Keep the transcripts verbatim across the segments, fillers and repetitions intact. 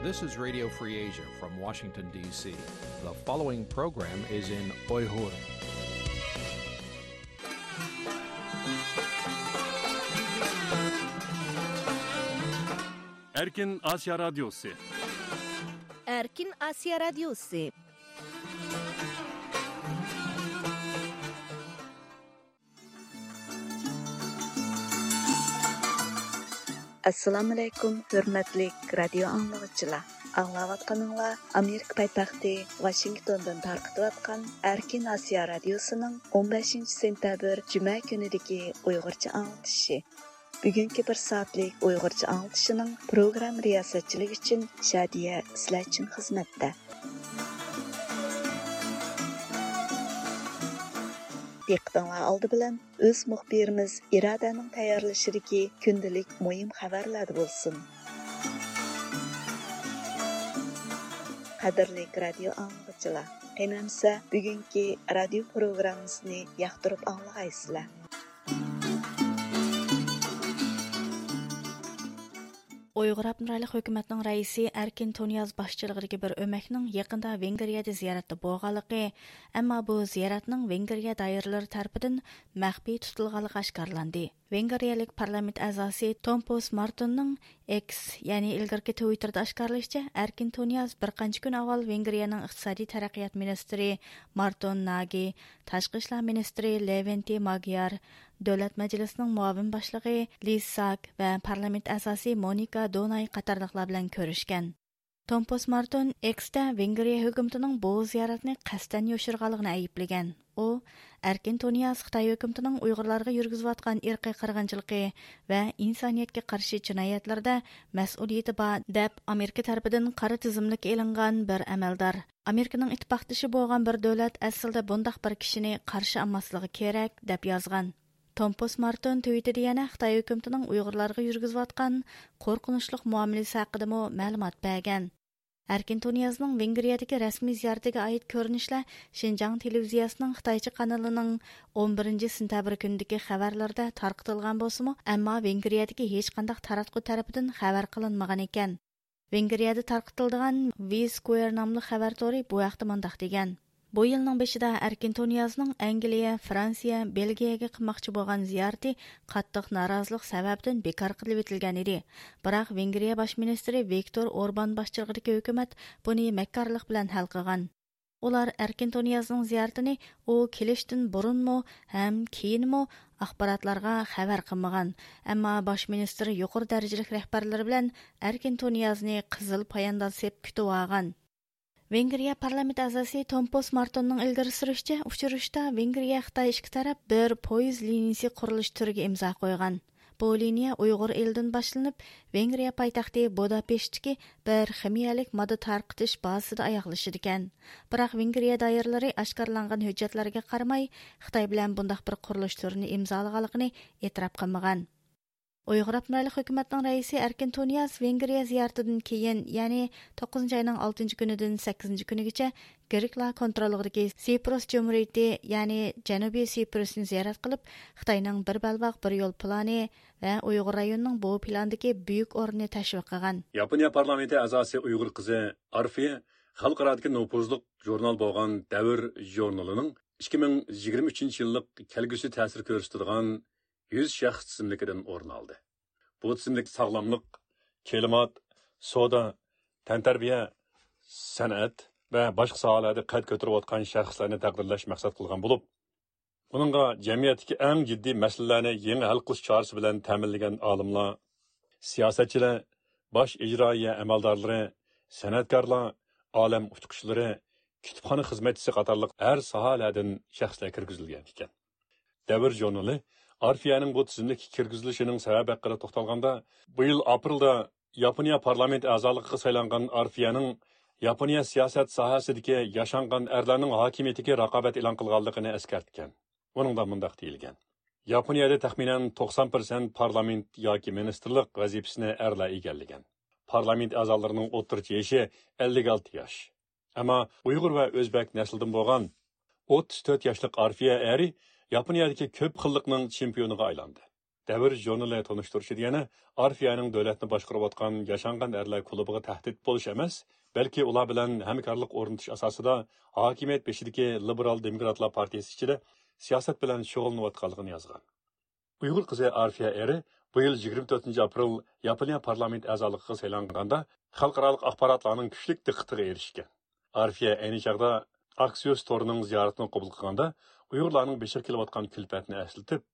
This is Radio Free Asia from Washington, D C. The following program is in Uyghur. Erkin Asiya Radyosu. Erkin Asiya Radyosu. ئەسسالامۇئەلەيكۇم، ھۆرمەتلىك رادىيو ئاڭلىغۇچىلار. ئاڭلاۋاتقىنىڭلار ئامېرىكا پايتەختى ۋاشىنگتوندىن تارقىتىۋاتقان ئەركىن ئاسىيا رادىيوسىنىڭ ئون بەشىنچى سېنتەبىر جۈمە كۈنىدىكى ئۇيغۇرچە ئاڭلىتىشى. بۈگۈنكى بىر سائەتلىك ئۇيغۇرچە ئاڭلىتىشىنىڭ پروگرامما رىياسەتچىلىكى ئۈچۈن شادىيە سىلەر ئۈچۈن خىزمەتتە. دىققىتىڭلار ئالدى بىلەن ئۆز مۇخبىرىمىز ئىرادەنىڭ تەييارلىشىدىكى كۈندىلىك مۇھىم خەۋەرلەردە بولسۇن. قەدىرلىك رادىيو ئاڭلىغۇچىلار، قېنى ئەمسە بۈگۈنكى رادىيو پروگراممىسىنى ياقتۇرۇپ ئاڭلىغايسىلەر. ئۇيغۇر ئاپتونوم رايونلۇق ھۆكۈمەتنىڭ رەئىسى ئەركىن تۇنىياز باشچىلىقىدىكى بىر ئۆمەكنىڭ يېقىندا ۋېنگرىيەدە زىيارەتتە بولغانلىقى، ئەمما بۇ زىيارەتنىڭ ۋېنگرىيە دائىرىلىرى تەرىپىدىن مەخپىي تۇتۇلغانلىقى ئاشكارىلاندى. ۋېنگرىيەلىك پارلامېنت ئەزاسى تومپوس مارتوننىڭ ئېكس، يەنى ئىلگىرىكى تىۋىتتېردا ئاشكارىلىشىچە، ئەركىن تۇنىياز بىر قانچە كۈن ئاۋۋال ۋېنگرىيەنىڭ ئىقتىسادىي تەرەققىيات مىنىستىرى مارتون ناگى، تاشقى ئىشلار مىنىستىرى لېۋېنتى ماگيار، دۆلەت مەجلىسىنىڭ مۇئاۋىن باشلىقى لىز ساك ۋە پارلامېنت ئەزاسى مونىكا دوناي قاتارلىقلار بىلەن كۆرۈشكەن. تومپوس مارتون ئېكستە ۋېنگرىيە ھۆكۈمىتىنىڭ بۇ زىيارەتنى قەستەن يوشۇرغانلىقىنى ئەيىبلىگەن. ئۇ، ئەركىن تۇنىياز خىتاي ھۆكۈمىتىنىڭ ئۇيغۇرلارغا يۈرگۈزۈۋاتقان ئىرقىي قىرغىنچىلىقى ۋە ئىنسانىيەتكە قارشى جىنايەتلىرىدە مەسئۇلىيىتى بار، دەپ ئامېرىكا تەرىپىدىن قارا تىزىملىككە ئېلىنغان بىر ئەمەلدار. ئامېرىكىنىڭ ئىتتىپاقدىشى بولغان بىر دۆلەت ئەسلىدە بۇنداق بىر كىشىنى قارشى ئالماسلىقى كېرەك، دەپ يازغان. تومپوس مارتون تىۋىتتېدا يەنە خىتاي ھۆكۈمىتىنىڭ ئۇيغۇرلارغا يۈرگۈزۈۋاتقان قورقۇنچلۇق مۇئامىلىسى ھەققىدىمۇ مەلۇمات بەرگەن. ئەركىن تۇنىيازنىڭ ۋېنگرىيەدىكى رەسمىي زىيارىتىگە ئائىت كۆرۈنۈشلەر شىنجاڭ تېلېۋىزىيەسىنىڭ خىتايچە قانىلىنىڭ ئون بىرىنچى سېنتەبىر كۈنىدىكى خەۋەرلىرىدە تارقىتىلغان بولسىمۇ، ئەمما ۋېنگرىيەدىكى ھېچقانداق تاراتقۇ تەرىپىدىن خەۋەر قىلىنمىغان ئىكەن. ۋېنگرىيەدە تارقىتىلىدىغان ۋى سكوير ناملىق خەۋەر تورى بۇ ھەقتە مۇنداق دېگەن: بۇ يىلنىڭ بېشىدا ئەركىن تۇنىيازنىڭ ئەنگلىيە، فرانسىيە، بېلگىيەگە قىلماقچى بولغان زىيارىتى قاتتىق نارازىلىق سەۋەبىدىن بىكار قىلىۋېتىلگەن ئىدى. بىراق ۋېنگرىيە باش مىنىستىرى ۋىكتور ئوربان باشچىلىقىدىكى ھۆكۈمەت بۇنى مەككارلىق بىلەن ھەل قىلغان. ئۇلار ئەركىن تۇنىيازنىڭ زىيارىتىنى ئۇ كېلىشتىن بۇرۇنمۇ ھەم كېيىنمۇ ئاخباراتلارغا خەۋەر قىلمىغان، ئەمما باش مىنىستىر يۇقىرى دەرىجىلىك رەھبەرلىرى بىلەن ئەركىن تۇنىيازنى قىزىل پايانداز سېپ كۈتۈۋالغان. ۋېنگرىيە پارلامېنت ئەزاسى تومپوس مارتوننىڭ ئىلگىرى سۈرۈشىچە، ئۇچرىشىشتا ۋېنگرىيە خىتاي ئىككى تەرەپ بىر پويىز لىنىيىسى قۇرۇلۇش تۈرىگە ئىمزا قويغان. بۇ لىنىيە ئۇيغۇر ئېلىدىن باشلىنىپ، ۋېنگرىيە پايتەختى بۇداپېشتتىكى بىر خىمىيەلىك ماددا تارقىتىش بازىسىدا ئاياغلىشىدىكەن. بىراق ۋېنگرىيە دائىرىلىرى ئاشكارىلانغان ھۆججەتلەرگە قارىماي، خىتاي بىلەن بۇنداق بىر قۇرۇلۇش تۈرىنى ئىمزالىغانلىقىنى ئېتىراپ قىلمىغان. ئۇيغۇر ئاپتونوم رايونلۇق ھۆكۈمەتنىڭ رەئىسى ئەركىن تۇنىياز ۋېنگرىيە زىيارىتىدىن كېيىن، يەنى توققۇزىنچى ئاينىڭ ئالتىنچى كۈنىدىن سەككىزىنچى كۈنىگىچە گرېكلار كونتروللۇقىدىكى سىپروس جۇمھۇرىيىتى، يەنى جەنۇبىي سىپروسنى زىيارەت قىلىپ، خىتاينىڭ بىر بەلباغ، بىر يول پىلانى ۋە ئۇيغۇر رايونىنىڭ بۇ پىلاندىكى بۈيۈك ئورنىنى تەشۋىق قىلغان. ياپونىيە پارلامېنتى ئەزاسى ئۇيغۇر قىزى ئارفىيە خەلقئارادىكى نوپۇزلۇق ژۇرنال بولغان دەۋر ژۇرنىلىنىڭ ئىككى مىڭ يىگىرمە ئۈچىنچى يىللىق كەلگۈسى تەسىر كۆرسىتىدىغان يۈز شەخس تىزىملىكىدىن ئورۇن ئالدى. بۇ تىزىملىك ساغلاملىق، كىلىمات، سودا، تەنتەربىيە، سەنئەت ۋە باشقا ساھەلەردە قەد كۆتۈرۈۋاتقان شەخسلەرنى تەقدىرلەش مەقسەت قىلغان بولۇپ، ئۇنىڭغا جەمئىيەتتىكى ئەڭ جىددىي مەسىلىلەرنى يېڭى ھەل قىلىش چارىسى بىلەن تەمىنلىگەن ئالىملار، سىياسەتچىلەر، باش ئىجرائىيە ئەمەلدارلىرى، سەنئەتكارلار، ئالەم ئۇچقۇچىلىرى، كۇتۇپخانا خىزمەتچىسى قاتارلىق ھەر ساھەلەردىن شەخسلەر كىرگۈزۈلگەن ئىكەن. دەۋر ژۇرنىلى ئارفىيەنىڭ بۇ تىزىملىككە كىرگۈزۈلۈشىنىڭ سەۋەبى ھەققىدە توختالغاندا، بۇ يىل ئاپرېلدا ياپونىيە پارلامېنت ئەزالىقىغا سايلانغان ئارفىيەنىڭ ياپونىيە سىياسەت ساھەسىدىكى ياشانغان ئەرلەرنىڭ ھاكىمىيىتىگە رىقابەت ئېلان قىلغانلىقىنى ئەسكەرتكەن. ئۇنىڭدا مۇنداق دېيىلگەن: ياپونىيەدە تەخمىنەن توقسان پىرسەنت پارلامېنت ياكى مىنىستىرلىق ۋەزىپىسىنى ئەرلەر ئىگىلىگەن. پارلامېنت ئەزالىرىنىڭ ئوتتۇرىچە يېشى ئەللىك ئالتە ياش. ئەمما ئۇيغۇر ۋە ئۆزبەك نەسلىدىن بولغان ئوتتۇز تۆت ياشلىق ئارفىيە ئەرى ياپونىيەدىكى كۆپ خىللىقنىڭ چېمپىيونىغا ئايلاندى. دەۋر ژۇرنىلى تونۇشتۇرۇشىدا يەنە ئارفىيەنىڭ دۆلەتنى باشقۇرۇۋاتقان ياشانغان ئەرلەر كۇلۇبىغا تەھدىت بولۇش ئەمەس، بەلكى ئۇلار بىلەن ھەمكارلىق ئورنىتىش ئاساسىدا ھاكىمىيەت بېشىدىكى لىبېرال دېموكراتلار پارتىيىسى ئىچىدە سىياسەت بىلەن شۇغۇللىنىۋاتقانلىقىنى يازغان. ئۇيغۇر قىزى ئارفىيە ئېرى بۇ يىل يىگىرمە تۆتىنچى ئاپرېل ياپونىيە پارلامېنت ئەزالىقىغا سايلانغاندا، خەلقئارالىق ئاخباراتلارنىڭ كۈچلۈك دىققىتىگە ئېرىشكەن. ئارفىيە ئەينى چاغدا ئاكسىيوس تورىنىڭ زىيارىتىنى قوبۇل قىلغاندا، ئۇيغۇرلارنىڭ بېشىغا كېلىۋاتقان كۈلپەتنى ئەسلىتىپ،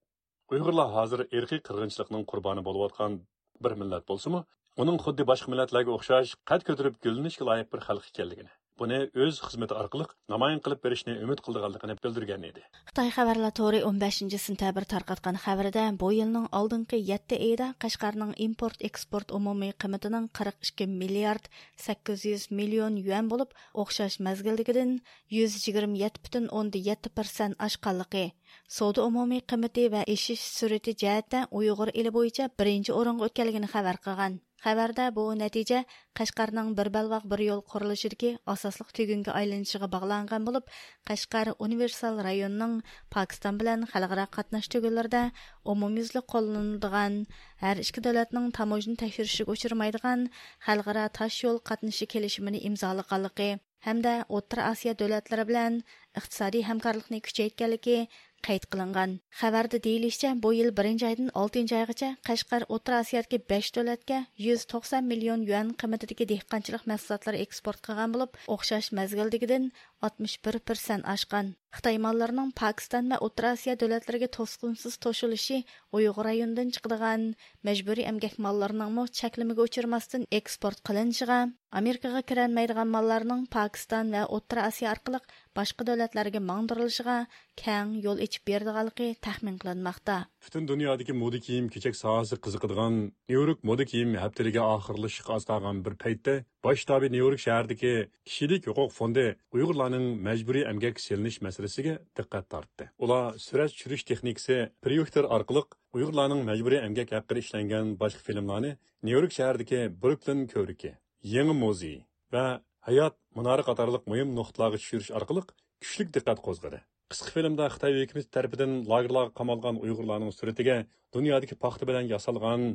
ئۇيغۇرلار ھازىر ئىرقىي قىرغىنچىلىقنىڭ قۇربانى بولۇۋاتقان بىر مىللەت بولسىمۇ، ئۇنىڭ خۇددى باشقا مىللەتلەرگە ئوخشاش قەد كۆتۈرۈپ گۈللىنىشكە لايىق بىر خەلق ئىكەنلىكىنى، بۇنى ئۆز خىزمىتى ئارقىلىق نامايان قىلىپ بېرىشنى ئۈمىد قىلىدىغانلىقىنى بىلدۈرگەن ئىدى. خىتاي خەۋەرلەر تورى ئون بەشىنچى سېنتەبىر تارقاتقان خەۋىرىدە، بۇ يىلنىڭ ئالدىنقى يەتتە ئېيىدا قەشقەرنىڭ ئىمپورت ئېكسپورت ئومۇمىي قىممىتىنىڭ قىرىق ئىككى مىليارد سەككىز يۈز مىليون يۈەن بولۇپ، ئوخشاش مەزگىلدىكىدىن يۈز يىگىرمە يەتتە پۈتۈن ئوندىن يەتتە پىرسەنت ئاشقانلىقى، سودا ئومۇمىي قىممىتى ۋە ئېشىش سۈرئىتى جەھەتتە ئۇيغۇر ئېلى بويىچە بىرىنچى ئورۇنغا ئۆتكەنلىكىنى خەۋەر قىلغان. خەۋەردە بۇ نەتىجە قەشقەرنىڭ بىر بەلباغ بىر يول قۇرۇلۇشىدىكى ئاساسلىق تۈگۈنگە ئايلىنىشىغا باغلانغان بولۇپ، قەشقەر ئۇنىۋېرسال رايونىنىڭ پاكىستان بىلەن خەلقئارا قاتناش تۈگۈنلىرىدە ئومۇميۈزلۈك قوللىنىلىدىغان، ھەر ئىككى دۆلەتنىڭ تاموژنا تەكشۈرۈشىگە ئۇچرىمايدىغان خەلقئارا تاش يول قاتنىشى كېلىشىمىنى ئىمزالىغانلىقى، ھەمدە ئوتتۇرا ئاسىيا دۆلەتلىرى بىلەن ئىقتىسادىي ھەمكارلىقنى كۈچەيتكەنلىكى قەيت قىلىنغان. خەۋەردە دېيىلىشىچە، بۇ يىل بىرىنچى ئايدىن ئالتىنچى ئايغىچە قەشقەر ئوتتۇرا ئاسىيادىكى بەش دۆلەتكە يۈز توقسان مىليون يۈەن قىممىتىدىكى دېھقانچىلىق مەھسۇلاتلىرى ئېكسپورت قىلغان بولۇپ، ئوخشاش مەزگىلدىكىدىن ئاتمىش بىر پىرسەنت ئاشقان. خىتاي ماللىرىنىڭ پاكىستان ۋە ئوتتۇرا ئاسىيا دۆلەتلىرىگە توسقۇنسىز توشۇلۇشى ئۇيغۇر رايونىدىن چىقىدىغان مەجبۇرىي ئەمگەك ماللىرىنىڭمۇ چەكلىمىگە ئۇچرىماستىن ئېكسپورت قىلىنىشىغا، ئامېرىكىغا كىرەلمەيدىغان ماللارنىڭ پاكىستان ۋە ئوتتۇرا ئاسىيا ئارقىلىق باشقا دۆلەتلەرگە ماڭدۇرۇلۇشىغا كەڭ يول ئېچىپ بېرىدىغانلىقى تەخمىن قىلىنماقتا. پۈتۈن دۇنيادىكى مودا كىيىم-كېچەك ساھەسى قىزىقىدىغان نيۇ يورك مودا كىيىم ھەپتىلىكى ئاخىرلىشىشقا ئاز قالغان بىر پەيتتە، باش شتابى نيۇ يورك شەھىرىدىكى كىشىلىك ھوقۇق فوندى ئۇيغۇرلارنىڭ مەجبۇرىي ئەمگەككە سېلىنىش مەسىلىسىگە دىققەت تارتتى. ئۇلار سۈرەت چۈشۈرۈش تېخنىكىسى پرويېكتور ئارقىلىق ئۇيغۇرلارنىڭ مەجبۇرىي ئەمگەك ھەققىدە ئىشلەنگەن باشقا فىلىملارنى نيۇ يورك شەھىرىدىكى بروكلىن كۆۋرۈكى، يېڭى مۇزېي ۋە ھايات مۇنارى قاتارلىق مۇھىم نۇقتىلارغا چۈشۈرۈش ئارقىلىق كۈچلۈك دىققەت قوزغىدى. قىسقا فىلىمدا خىتاي ھۆكۈمىتى تەرىپىدىن لاگېرلارغا قامالغان ئۇيغۇرلارنىڭ سۈرىتىگە دۇنيادىكى پاختا بىلەن ياسالغان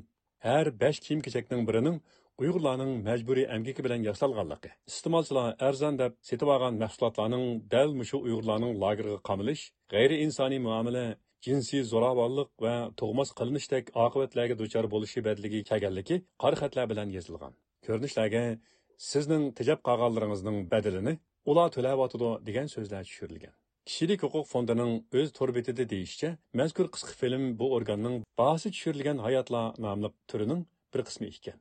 ھەر بەش كىيىم-كېچەكنىڭ بىرىنىڭ ئۇيغۇرلارنىڭ مەجبۇرىي ئەمگىكى بىلەن ياسالغانلىقى، ئىستېمالچىلار ئەرزان دەپ سېتىۋالغان مەھسۇلاتلارنىڭ دەل مۇشۇ ئۇيغۇرلارنىڭ لاگېرغا قامىلىش، غەيرىئىنسانىي مۇئامىلە، جىنسىي زوراۋانلىق ۋە تۇغماس قىلىنىشتەك ئاقىۋەتلەرگە دۇچار بولۇشى بەدىلىگە كەلگەنلىكى قارا خەتلەر بىلەن يېزىلغان. كۆرۈنۈشلەرگە «سىزنىڭ تېجەپ قالغانلىرىڭىزنىڭ بەدىلىنى ئۇلار تۆلەۋاتىدۇ» دېگەن سۆزلەر چۈشۈرۈلگەن. كىشىلىك ھوقۇق فوندىنىڭ ئۆز تور بېتىدە دېيىشىچە، مەزكۇر قىسقا فىلىم بۇ ئورگاننىڭ باھاسى چۈشۈرۈلگەن ھاياتلار ناملىق تۈرىنىڭ بىر قىسمى ئىكەن.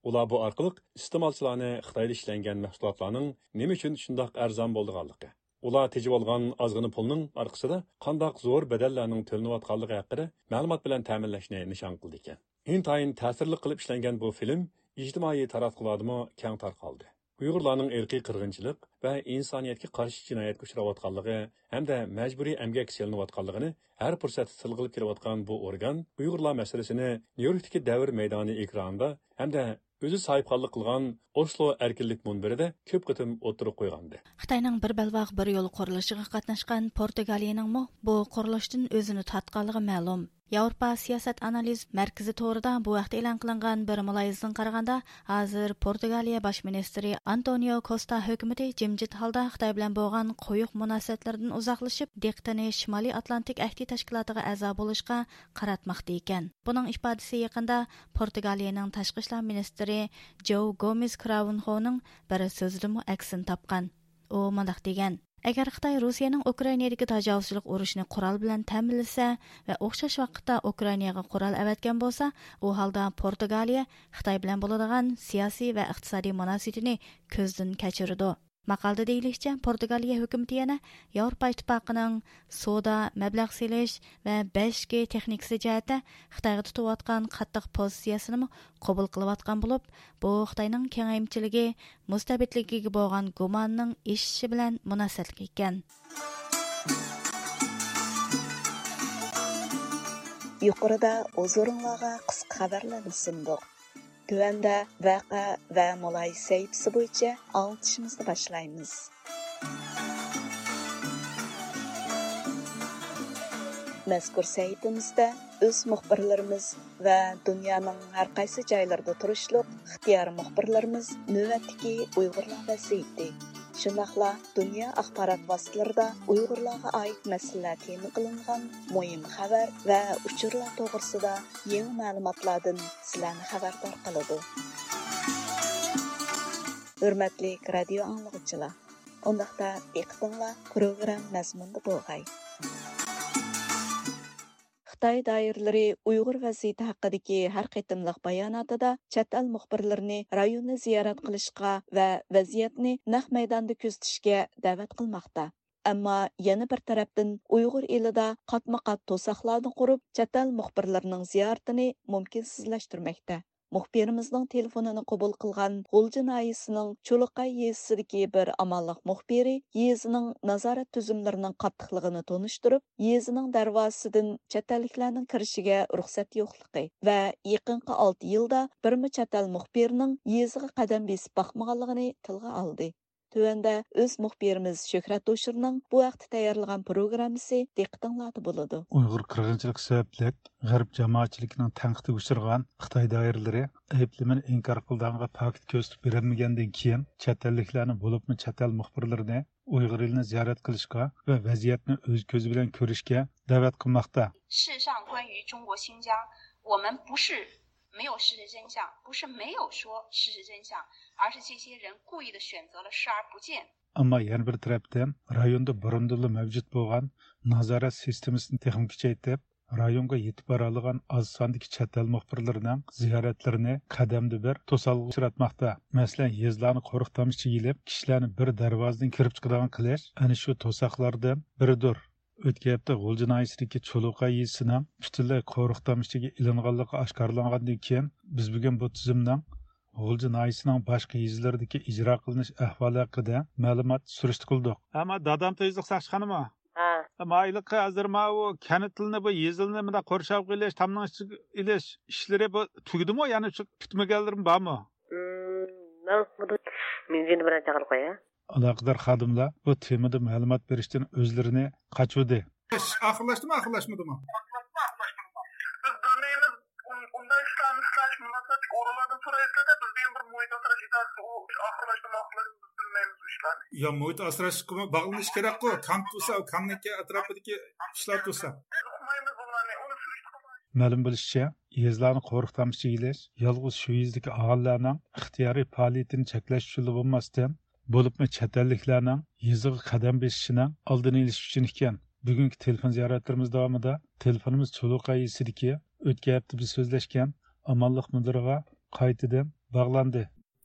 ئۇلار بۇ ئارقىلىق ئىستېمالچىلارنى خىتايدا ئىشلەنگەن مەھسۇلاتلارنىڭ نېمە ئۈچۈن شۇنداق ئەرزان بولىدىغانلىقى، ئۇلار تېجىۋالغان ئازغىنا پۇلنىڭ ئارقىسىدا قانداق زور بەدەللەرنىڭ تۆلىنىۋاتقانلىقى ھەققىدە مەلۇمات بىلەن تەمىنلەشنى نىشان قىلىدىكەن. ئىنتايىن تەسىرلىك قىلىپ ئىشلەنگەن بۇ فىلىم ئىجتىمائىي تاراتقۇلاردىمۇ كەڭ تارقالدى. ئۇيغۇرلارنىڭ ئىرقىي قىرغىنچىلىق ۋە ئىنسانىيەتكە قارشى جىنايەتكە ئۇچراۋاتقانلىقى ھەمدە مەجبۇرىي ئەمگەككە سېلىنىۋاتقانلىقىنى ھەر پۇرسەتتە تىلغا ئېلىپ كېلىۋاتقان بۇ ئورگان ئۇيغۇرلار مەسىلىسىنى نيۇ يوركتىكى دەۋر مەيدانى ئېكرانىدا ھەمدە ئۆزى ساھىبخانلىق قىلغان ئوسلو ئەركىنلىك مۇنبىرىدە كۆپ قېتىم ئوتتۇرىغا قويغانىدى. خىتاينىڭ بىر بەلباغ بىر يول قۇرۇلۇشىغا قاتناشقان پورتۇگالىيەنىڭمۇ بۇ قۇرۇلۇشتىن ئۆزىنى تارتقانلىقى مەلۇم. ياۋروپا سىياسەت ئانالىز مەركىزى تورىدا بۇ ھەقتە ئېلان قىلىنغان بىر مۇلاھىزىدىن قارىغاندا، ھازىر پورتۇگالىيە باش مىنىستىرى ئانتونىيو كوستا ھۆكۈمىتى جىمجىت ھالدا خىتاي بىلەن بولغان قويۇق مۇناسىۋەتلىرىدىن ئۇزاقلىشىپ، دىققىتىنى شىمالىي ئاتلانتىك ئەھدى تەشكىلاتىغا ئەزا بولۇشقا قاراتماقتا ئىكەن. بۇنىڭ ئىپادىسى يېقىندا پورتۇگالىيەنىڭ تاشقى ئىشلار مىنىستىرى جوۋ گومېز كراۋنخونىڭ بىر سۆزىدىمۇ ئەكسىنى تاپقان. ئۇ مۇنداق دېگەن: «ئەگەر خىتاي رۇسىيەنىڭ ئۇكرائىنادىكى تاجاۋۇزچىلىق ئۇرۇشىنى قورال بىلەن تەمىنلىسە ۋە ئوخشاش ۋاقىتتا ئۇكرائىناغا قورال ئەۋەتكەن بولسا، ئۇ ھالدا پورتۇگالىيە خىتاي بىلەن بولىدىغان سىياسىي ۋە ئىقتىسادىي مۇناسىۋىتىنى كۆزدىن كەچۈرىدۇ.» ماقالىدە دېيىلىشىچە، پورتۇگالىيە ھۆكۈمىتى يەنە ياۋروپا ئىتتىپاقىنىڭ سودا، مەبلەغ سېلىش ۋە بەش جى تېخنىكىسى جەھەتتە خىتايغا تۇتۇۋاتقان قاتتىق پوزىتسىيەسىنىمۇ قوبۇل قىلىۋاتقان بولۇپ، بۇ خىتاينىڭ كېڭەيمىچىلىكى، مۇستەبىتلىكىگە بولغان گۇمانىنىڭ ئېشىشى بىلەن مۇناسىۋەتلىك ئىكەن. يۇقىرىدا ھۇزۇرۇڭلارغا قىسقا خەۋەرلەرنى سۇندۇق. تۆۋەندە ۋەقە ۋە مۇلاھىزە سەھىپىسى بويىچە ئاڭلىتىشىمىزنى باشلايمىز. مەزكۇر سەھىپىمىزدە ئۆز مۇخبىرلىرىمىز ۋە دۇنيانىڭ ھەر قايسى جايلىرىدا تۇرۇشلۇق ئىختىيارىي مۇخبىرلىرىمىز نۆۋەتتىكى ئۇيغۇرلار ۋەزىيىتى، شۇنداقلا دۇنيا ئاخبارات ۋاسىتىلىرىدا ئۇيغۇرلارغا ئائىت مەسىلىلەر تېما قىلىنغان مۇھىم خەۋەر ۋە ئۇچۇرلار توغرىسىدا يېڭى مەلۇماتلاردىن سىلەرنى خەۋەردار قىلىدۇ. ھۆرمەتلىك رادىيو ئاڭلىغۇچىلار! ئۇنداقتا دىققىتىڭلار پروگرامما مەزمۇنىدا بولغاي. خىتاي دائىرىلىرى ئۇيغۇر ۋەزىيىتى ھەققىدىكى ھەر قېتىملىق باياناتىدا چەت ئەل مۇخبىرلىرىنى رايوننى زىيارەت قىلىشقا ۋە ۋەزىيەتنى نەق مەيداندا كۆزىتىشكە دەۋەت قىلماقتا. ئەمما يەنە بىر تەرەپتىن ئۇيغۇر ئېلىدا قاتمۇ قات توساقلارنى قۇرۇپ، چەت ئەل مۇخبىرلىرىنىڭ زىيارىتىنى مۇمكىنسىزلەشتۈرمەكتە. مۇخبىرىمىزنىڭ تېلېفونىنى قوبۇل قىلغان غۇلجا ناھىيەسىنىڭ چۇلۇقاي يېزىسىدىكى بىر ئامانلىق مۇخبىرى يېزىنىڭ نازارەت تۈزۈملىرىنىڭ قاتتىقلىقىنى تونۇشتۇرۇپ، يېزىنىڭ دەرۋازىسىدىن چەت ئەللىكلەرنىڭ كىرىشىگە رۇخسەت يوقلۇقى ۋە يېقىنقى ئالتە يىلدا بىرمۇ چەت ئەل مۇخبىرىنىڭ يېزىغا قەدەم بېسىپ باقمىغانلىقىنى تىلغا ئالدى. تۆۋەندە ئۆز مۇخبىرىمىز شۆھرەت ھوشۇرنىڭ بۇ ھەقتە تەييارلىغان پروگراممىسى دىققىتىڭلاردا بولىدۇ. ئۇيغۇر قىرغىنچىلىقى سەۋەبلىك غەرب جامائەتچىلىكىنىڭ تەنقىدىگە ئۇچرىغان خىتاي دائىرىلىرى ئەيىبلىمىنى ئىنكار قىلىدىغانغا پاكىت كۆرسىتىپ بېرەلمىگەندىن كېيىن، چەت ئەللىكلەرنى، بولۇپمۇ چەت ئەل مۇخبىرلىرىنى ئۇيغۇر ئېلىنى زىيارەت قىلىشقا ۋە ۋەزىيەتنى ئۆز كۆزى بىلەن كۆرۈشكە دەۋەت قىلماقتا. 事实上，关于中国新疆，我们不是没有事实真相，不是没有说事实真相，而是这些人故意的选择了视而不见。 ئەمما يەنە بىر تەرەپتىن، رايوندا بۇرۇندىنلا مەۋجۇت بولغان نازارەت سىستېمىسىنى تېخىمۇ كۈچەيتىپ، رايونغا يېتىپ بارالىغان ئاز ساندىكى چەت ئەل مۇخبىرلىرىنىڭ زىيارەتلىرىنى قەدەمدە بىر توسالغۇغا ئۇچراتماقتا. مەسىلەن، يېزىلارنى قورۇق تامچىسىغا ئېلىپ، كىشىلەرنى بىر دەرۋازىدىن كىرىپ چىقىدىغان قىلىش ئەنە شۇ توساقلاردىن بىرىدۇر. ئۆتكەن ھەپتە غۇلجا ناھىيەسىدىكى چۇلۇقاي يېزىسىنىڭ پۈتۈنلەي قورۇق تامچىسىغا ئېلىنغانلىقى ئاشكارىلانغاندىن كېيىن، بىز بۈگۈن بۇ تۈزۈمنىڭ غۇلجا ناھىيەسىنىڭ باشقا يېزىلىرىدىكى ئىجرا قىلىنىش ئەھۋالى ھەققىدە مەلۇمات سۈرۈشتە قىلدۇق. ئەمما دادام تېزلىق ساقچىخانىمۇ؟ ھە. مايلىقى ھازىر ماۋۇ كەنتلىنى، بۇ يېزىلنى مۇنداق قورشاپ قېلىش، تامنىڭ ئىچىگە ئېلىش ئىشلىرى بۇ تۈگىدىمۇ؟ يەنە شۇ پۈتمىگەنلىرىمۇ بارمۇ؟ مم، مەن مۇنداق مىڭجىنى بىلەن چاقىرىپ قوياي. ئالاقىدار خادىملار بۇ تېمىدا مەلۇمات بېرىشتىن ئۆزلىرىنى قاچۇردى. ئىش ئاخىرلاشتىمۇ، ئاخىرلاشمىدىمۇ؟ بىز بىلمەيمىز. ئۇن-، ئۇنداق ئىشلارنى ئىشلەش مۇناسىۋەتلىك ئورۇنلاردىن سورايسىلەر-دە، بىز دېگەن بىر مۇھىت ئاسراش ئىدارىسى، ئۇ ئىش ئاخىرلاشتىمۇ، ئاخىرلاشمىدىمۇ، بىز بىلمەيمىز ئۇ ئىشلارنى. يا، مۇھىت ئاسراشقىمۇ باغلىنىش كېرەكقۇ، كام تۇرسا، ئۇ كامنىڭكى ئەتراپىدىكى ئىشلار تۇرسا. بىز ئۇقمايمىز ئۇلارنى، ئۇنى سۈرۈشتە قىلمايمىز. مەلۇم بولۇشىچە، يېزىلارنى قورۇق تامچىسىغا ئېلىش يالغۇز شۇ يېزىدىكى ئاھالىلەرنىڭ ئىختىيارىي پائالىيىتىنى چەكلەش ئۈچۈنلا بولماستىن، بولۇپمۇ چەت ئەللىكلەرنىڭ يېزىغا قەدەم بېسىشىنىڭ ئالدىنى ئېلىش ئۈچۈن ئىكەن. بۈگۈنكى تېلېفون زىيارەتلىرىمىز داۋامىدا تېلېفونىمىز چۇلۇقاي يېزىسىدىكى ئۆتكەن ھەپتە بىز سۆزلەشكەن ئامانلىق مۇدىرىغا قايتىدىن باغلاندى.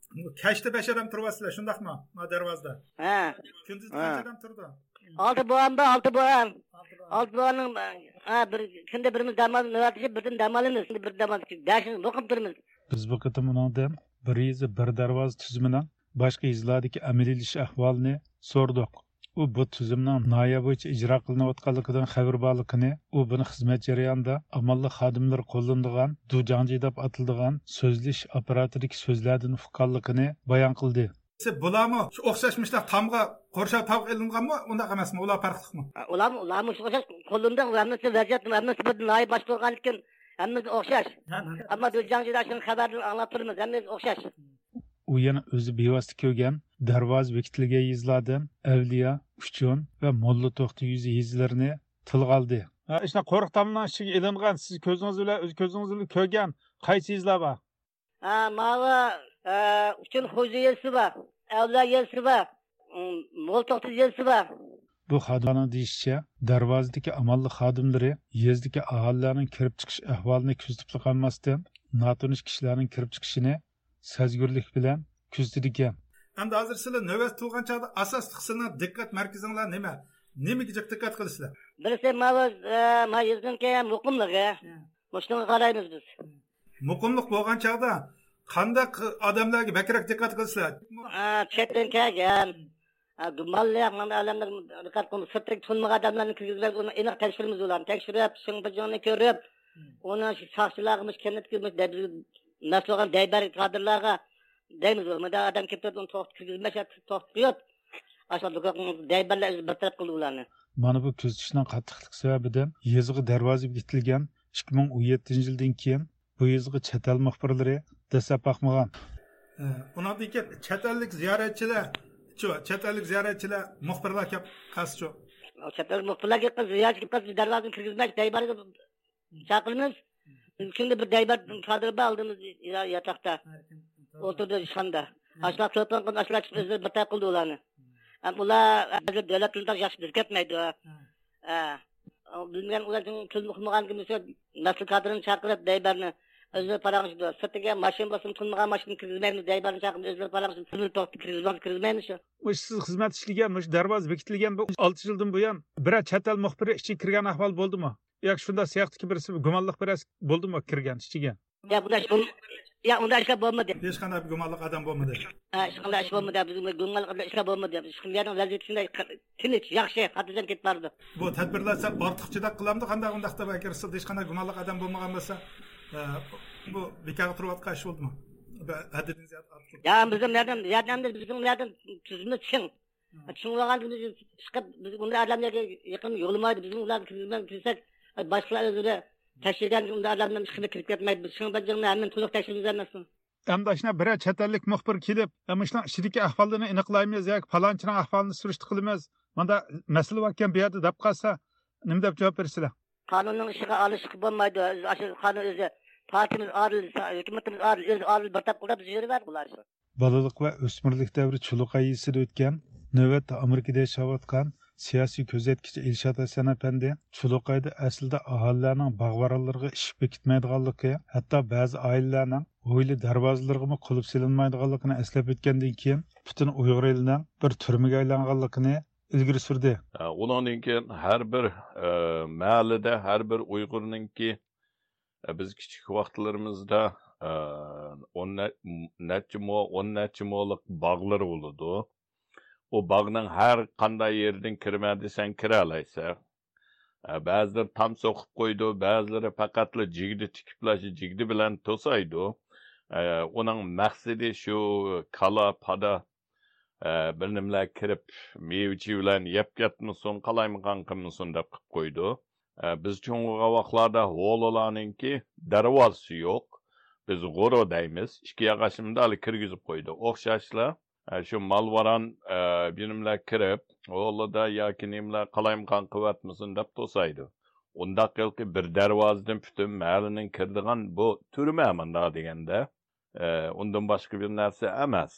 كەچتە بەش ئادەم تۇرۇۋاتىسىلەر، شۇنداقمۇ؟ ما دەرۋازىدا. ھە. كۈندۈز ھە. قانچە ئادەم تۇرىدۇ؟ ئالتە بوغان بار، ئالتە بوغان. ئالتە بوغان. ئالتە بوغاننىڭ، ھە، بىر كۈندە بىرىمىز دەم ئالىمىز، نۆۋەتلىشىپ بىردىن دەم ئالىمىز. بىر دەم ئالىمىز. دەشىمىز مۇقىم تۇرىمىز. بىز بۇ قېتىم ئۇنىڭدىن بىر يېزا، بىر دەرۋازا تۈزۈمىنىڭ باشقا يېزىلاردىكى ئەمەلىيلىشىش ئەھۋالىنى سورىدۇق. ئۇ بۇ تۈزۈمنىڭ ناھىيە بويىچە ئىجرا قىلىنىۋاتقانلىقىدىن خەۋىرى بارلىقىنى، ئۇ بۇنى خىزمەت جەريانىدا ئامانلىق خادىملىرى قوللىنىدىغان دۇجاڭجى دەپ ئاتىلىدىغان سۆزلىشىش ئاپپاراتىدىكى سۆزلەردىن ئۇققانلىقىنى بايان قىلدى. بۇلارمۇ شۇ ئوخشاش مۇشۇنداق تامغا، قورشاۋ تامغا ئېلىنغانمۇ؟ ئۇنداق ئەمەسمۇ؟ ئۇلار پەرقلىقمۇ؟ ئۇلارمۇ، ئۇلارمۇ شۇ ئوخشاش قوللىنىدۇ. ھەممىسى ۋەزىيەت، ھەممىسى بىر ناھىيە باشقۇرغاندىكىن ھەممىسى ئوخشاش. ھە، ھە. ئەمما دۇجاڭجىدا شۇنى خەۋەردىن ئاڭلاپ تۇرىمىز، ھەممىسى ئوخشاش. ئۇ يەنە ئۆزى بىۋاسىتە كۆرگەن، دەرۋازا بېكىتىلگەن يېزىلاردىن ئەۋلىيا، ئۇچۇن ۋە موللا توختى يېزا، يېزىلىرىنى تىلغا ئالدى. ھە، ئىشنا قورۇق تامنىڭ ئىچىگە ئېلىنغان، سىز كۆزىڭىز بىلەن، ئۆز كۆزىڭىز بىلەن كۆرگەن قايسى يېزىلار بار؟ ھە، ماۋۇ، ئە، ئۇچۇن خوجا يېزىسى بار، ئەۋلىيا يېزىسى بار، ئىم، موللا توختى يېزىسى بار. بۇ خادىملارنىڭ دېيىشىچە، دەرۋازىدىكى ئامانلىق خادىملىرى يېزىدىكى ئاھالىلەرنىڭ كىرىپ چىقىش ئەھۋالىنى كۆزىتىپلا قالماستىن، ناتونۇش كىشىلەرنىڭ كىرىپ چىقىشىنى سەزگۈرلۈك بىلەن كۆزىتىدىكەن. ئەمدى ھازىر سىلەر نۆۋەت تۇرغان چاغدا ئاساسلىق سىلەرنىڭ دىققەت مەركىزىڭلار نېمە؟ نېمىگە جىق دىققەت قىلىسىلەر؟ بىرسى ماۋۇ، ئە، ما يېزىنىڭكى مۇقىملىقى. ھە. مۇشۇنىڭغا قارايمىز بىز. مۇقىملىق بولغان چاغدا قانداق ئادەملەرگە بەكرەك دىققەت قىلىسىلەر؟ ئە، چەتتىن كەلگەن، ئە، گۇمانلىق، مانا ئادەملەر دىققەت قىلماي، سىرتتىكى تونۇمىغان ئادەملەرنى كىرگۈزمەي، ئۇنى ئېنىق تەكشۈرىمىز ئۇلارنى. تەكشۈرۈپ، شىڭ بىجىڭنى كۆرۈپ، ئۇنى شۇ ساقچىلارغا مۇشۇ كەنتتىكى مۇشۇ دەب-، مەسئۇل بولغان دەيبەر كادىرلارغا دەيمىز، مۇنداق ئادەم كېلىپ تۇرۇپ، ئۇنى توختىتىپ كىرگۈزمەي، توختىتىپ قويۇپ، ئاشۇ دەيبەرلەر بىر تەرەپ قىلدى ئۇلارنى. مانا بۇ كۆزىتىشنىڭ قاتتىقلىقى سەۋەبىدىن يېزىغا دەرۋازا بېكىتىلگەن ئىككى مىڭ ئون يەتتىنچى يىلدىن كېيىن بۇ يېزىغا چەت ئەل مۇخبىرلىرى دەسسەپ باقمىغان. ئۇنىڭدىن كېيىن چەت ئەللىك زىيارەتچىلەر، چەت ئەللىك زىيارەتچىلەر مۇخبىرلار كەپ قالسىچۇ؟ چەت ئەل مۇخبىرلار كەپ قالسا، زىيارەتچى كەپ قالسا، بىز دەرۋازىنى كىرگۈزمەي، دەيبارغا چاقىرىمىز. كۈندە بىر دەيبار كادىر بار ئالدىمىزدا ياتاقتا. ئولتۇردى ئىشخانىدا. ئاشۇلار تېلېفون قىلىپ، ئاشۇلار چىقىپ ئۆزلىرى بىر تەرەپ قىلدى ئۇلارنى. ھەم ئۇلار ھازىر دۆلەت تىلىدا ياخشى بىر كەتمەيدۇ. ھە. بىلمىگەن ئۇلار تىل ئۇقمىغان كىمسە مەسئۇل كادىرنى چاقىرىپ دەيبارنى ئۆزلىرى پاراڭلىشىدۇ. سىرتىگە ماشىنا بولسىمۇ تونۇلمىغان ماشىنىنى كىرگۈزمەيمىز، دەيبارنى چاقىرىپ ئۆزلىرى پاراڭلىشىدۇ. تونۇلۇپ توختى كىرگۈزمەڭ، كىرگۈزمەيمىز شۇ. مۇشۇ سىز خىزمەت ئىشلىگەن، مۇشۇ دەرۋازا بېكىتىلگەن بۇ ئالتە يىلدىن بۇيان بىرەر چەت ئەل مۇخبىرى ئىچىگە كىرگەن ئەھۋال بولدىمۇ؟ ياكى شۇنداق سىياقتىكى بىرسى گۇمانلىق بىرەر بولدىمۇ كىرگەن ئىچىگە؟ يا، بۇنداق ئىش بولم-، يا، ئۇنداق ئىشلار بولمىدى. ھېچقانداق بىر گۇمانلىق ئادەم بولمىدى. ھە، ھېچقانداق ئىش بولمىدى. بىزنىڭ گۇمانلىق ئىشلار بولمىدى. شۇ يەرنىڭ ۋەزىيىتى شۇنداق تىنچ، ياخشى، خاتىرجەم كېتىپ بارىدۇ. بۇ تەدبىرلەر سەل ئارتۇق جىددىي قىلامدۇ، قانداق ئۇنداقتا ئەگەر سىزدە ھېچقانداق گۇمانلىق ئادەم بولمىغان بولسا، ئە، بۇ بىكارغا تۇرۇۋاتقان ئىش بولدىمۇ؟ بە-، ھەددىدىن زىيادە ئارتۇق. يا، بىزنىڭ ياردەم، ياردەمدە بىزنىڭ ياردەم تۈزۈمى چىڭ. چۈشىنىۋالغان كۈنى چىقىپ، بىز ئۇنداق ئادەملەرگە يېقىن يولىمايدۇ. بىزمۇ ئۇلارنى كىرگۈزمەي كىرسەك، باشقىلار ئۆزلىرى تەكشۈرگەن ئۇنداق ئادەملەرنىڭ ئىشىغا كىرىپ كەتمەيدۇ. بىز شۇنىڭ بىلەن جىڭنى ھەممىنى تولۇق تەكشۈرىمىز ئەمەسمۇ؟ ئەمدى ئاشۇنداق بىرەر چەت ئەللىك مۇخبىر كېلىپ، مۇشۇنىڭ ئىچىدىكى ئەھۋاللىرىنى ئېنىقلايمىز ياكى پالانچىنىڭ ئەھۋالىنى سۈرۈشتە قىلىمىز، مانداق مەسىلە باركەن بۇ يەردە دەپ قالسا، نېمە دەپ جاۋاب بېرىسىلەر؟ قانۇننىڭ ئىشىغا ئارىلىشىشقا بولمايدۇ. ئاشۇ قانۇن ئۆزى، پارتىيىمىز ئارىلىشسا، ھۆكۈمىتىمىز ئارىل-، ئۆزى ئارىل بىر تەپ قىلىپ بىز يۈرۈۋەردى بۇلار. بالىلىق ۋە ئۆسمۈرلۈك دەۋرى چۇلۇقاي يېزىسىدا ئۆتكەن. نۆۋەتتە ئامېرىكىدا ياشاۋاتقان سىياسىي كۆزەتكۈچى ئىلشات ھەسەن ئەپەندى چۇلۇقايدا ئەسلىدە ئاھالىلەرنىڭ باغ-ۋارانلىرىغا ئىشىك بېكىتمەيدىغانلىقى، ھەتتا بەزى ئائىلىلەرنىڭ ھويلا دەرۋازىلىرىغىمۇ قۇلۇپ سېلىنمايدىغانلىقىنى ئەسلەپ ئۆتكەندىن كېيىن، پۈتۈن ئۇيغۇر ئېلىنىڭ بىر تۈرمىگە ئايلانغانلىقىنى ئىلگىرى سۈردى. ئە، ئۇنىڭدىن كېيىن ھەر بىر، ئە، مەھەللىدە، ھەر بىر ئۇيغۇرنىڭكى، ئە، بىز كىچىك ۋاقىتلىرىمىزدا، ئە، ئون نە-، نەچچە مو، ئون نەچچە مولۇق باغلىرى بولىدۇ. ئۇ باغنىڭ ھەر قانداق يېرىدىن كىرىمەن دېسەڭ كىرەلەيسەن. ئە، بەزىلىرى تام سوقۇپ قويىدۇ، بەزىلىرى پەقەتلا جىگدە تىكىپلا شۇ جىگدە بىلەن توسايدۇ. ئە، ئۇنىڭ مەقسىتى شۇ كالا، پادا، ئە، بىر نېمىلەر كىرىپ، مېۋە-چېۋىلەرنى يەپ كەتمىسۇن، قالايمىقان قىلمىسۇن دەپ قىلىپ قويىدۇ. ئە، بىز چوڭ بولغان ۋاقىتلاردا ھويلىلارنىڭكى دەرۋازىسى يوق. بىز غورو دەيمىز، ئىككى ياغاچنى مۇنداق كىرگۈزۈپ قويىدۇ. ئوخشاشلا، ئە، شۇ مال-ۋاران، ئە، بىر نېمىلەر كىرىپ، ھويلىدا ياكى نېمىلەر قالايمىقان قىلىۋەتمىسۇن دەپ توسايدۇ. ئۇنداق ھېلىقى بىر دەرۋازىدىن پۈتۈن مەھەللىنىڭ كىرىدىغان بۇ تۈرمە مۇنداق دېگەندە، ئە، ئۇندىن باشقا بىر نەرسە ئەمەس.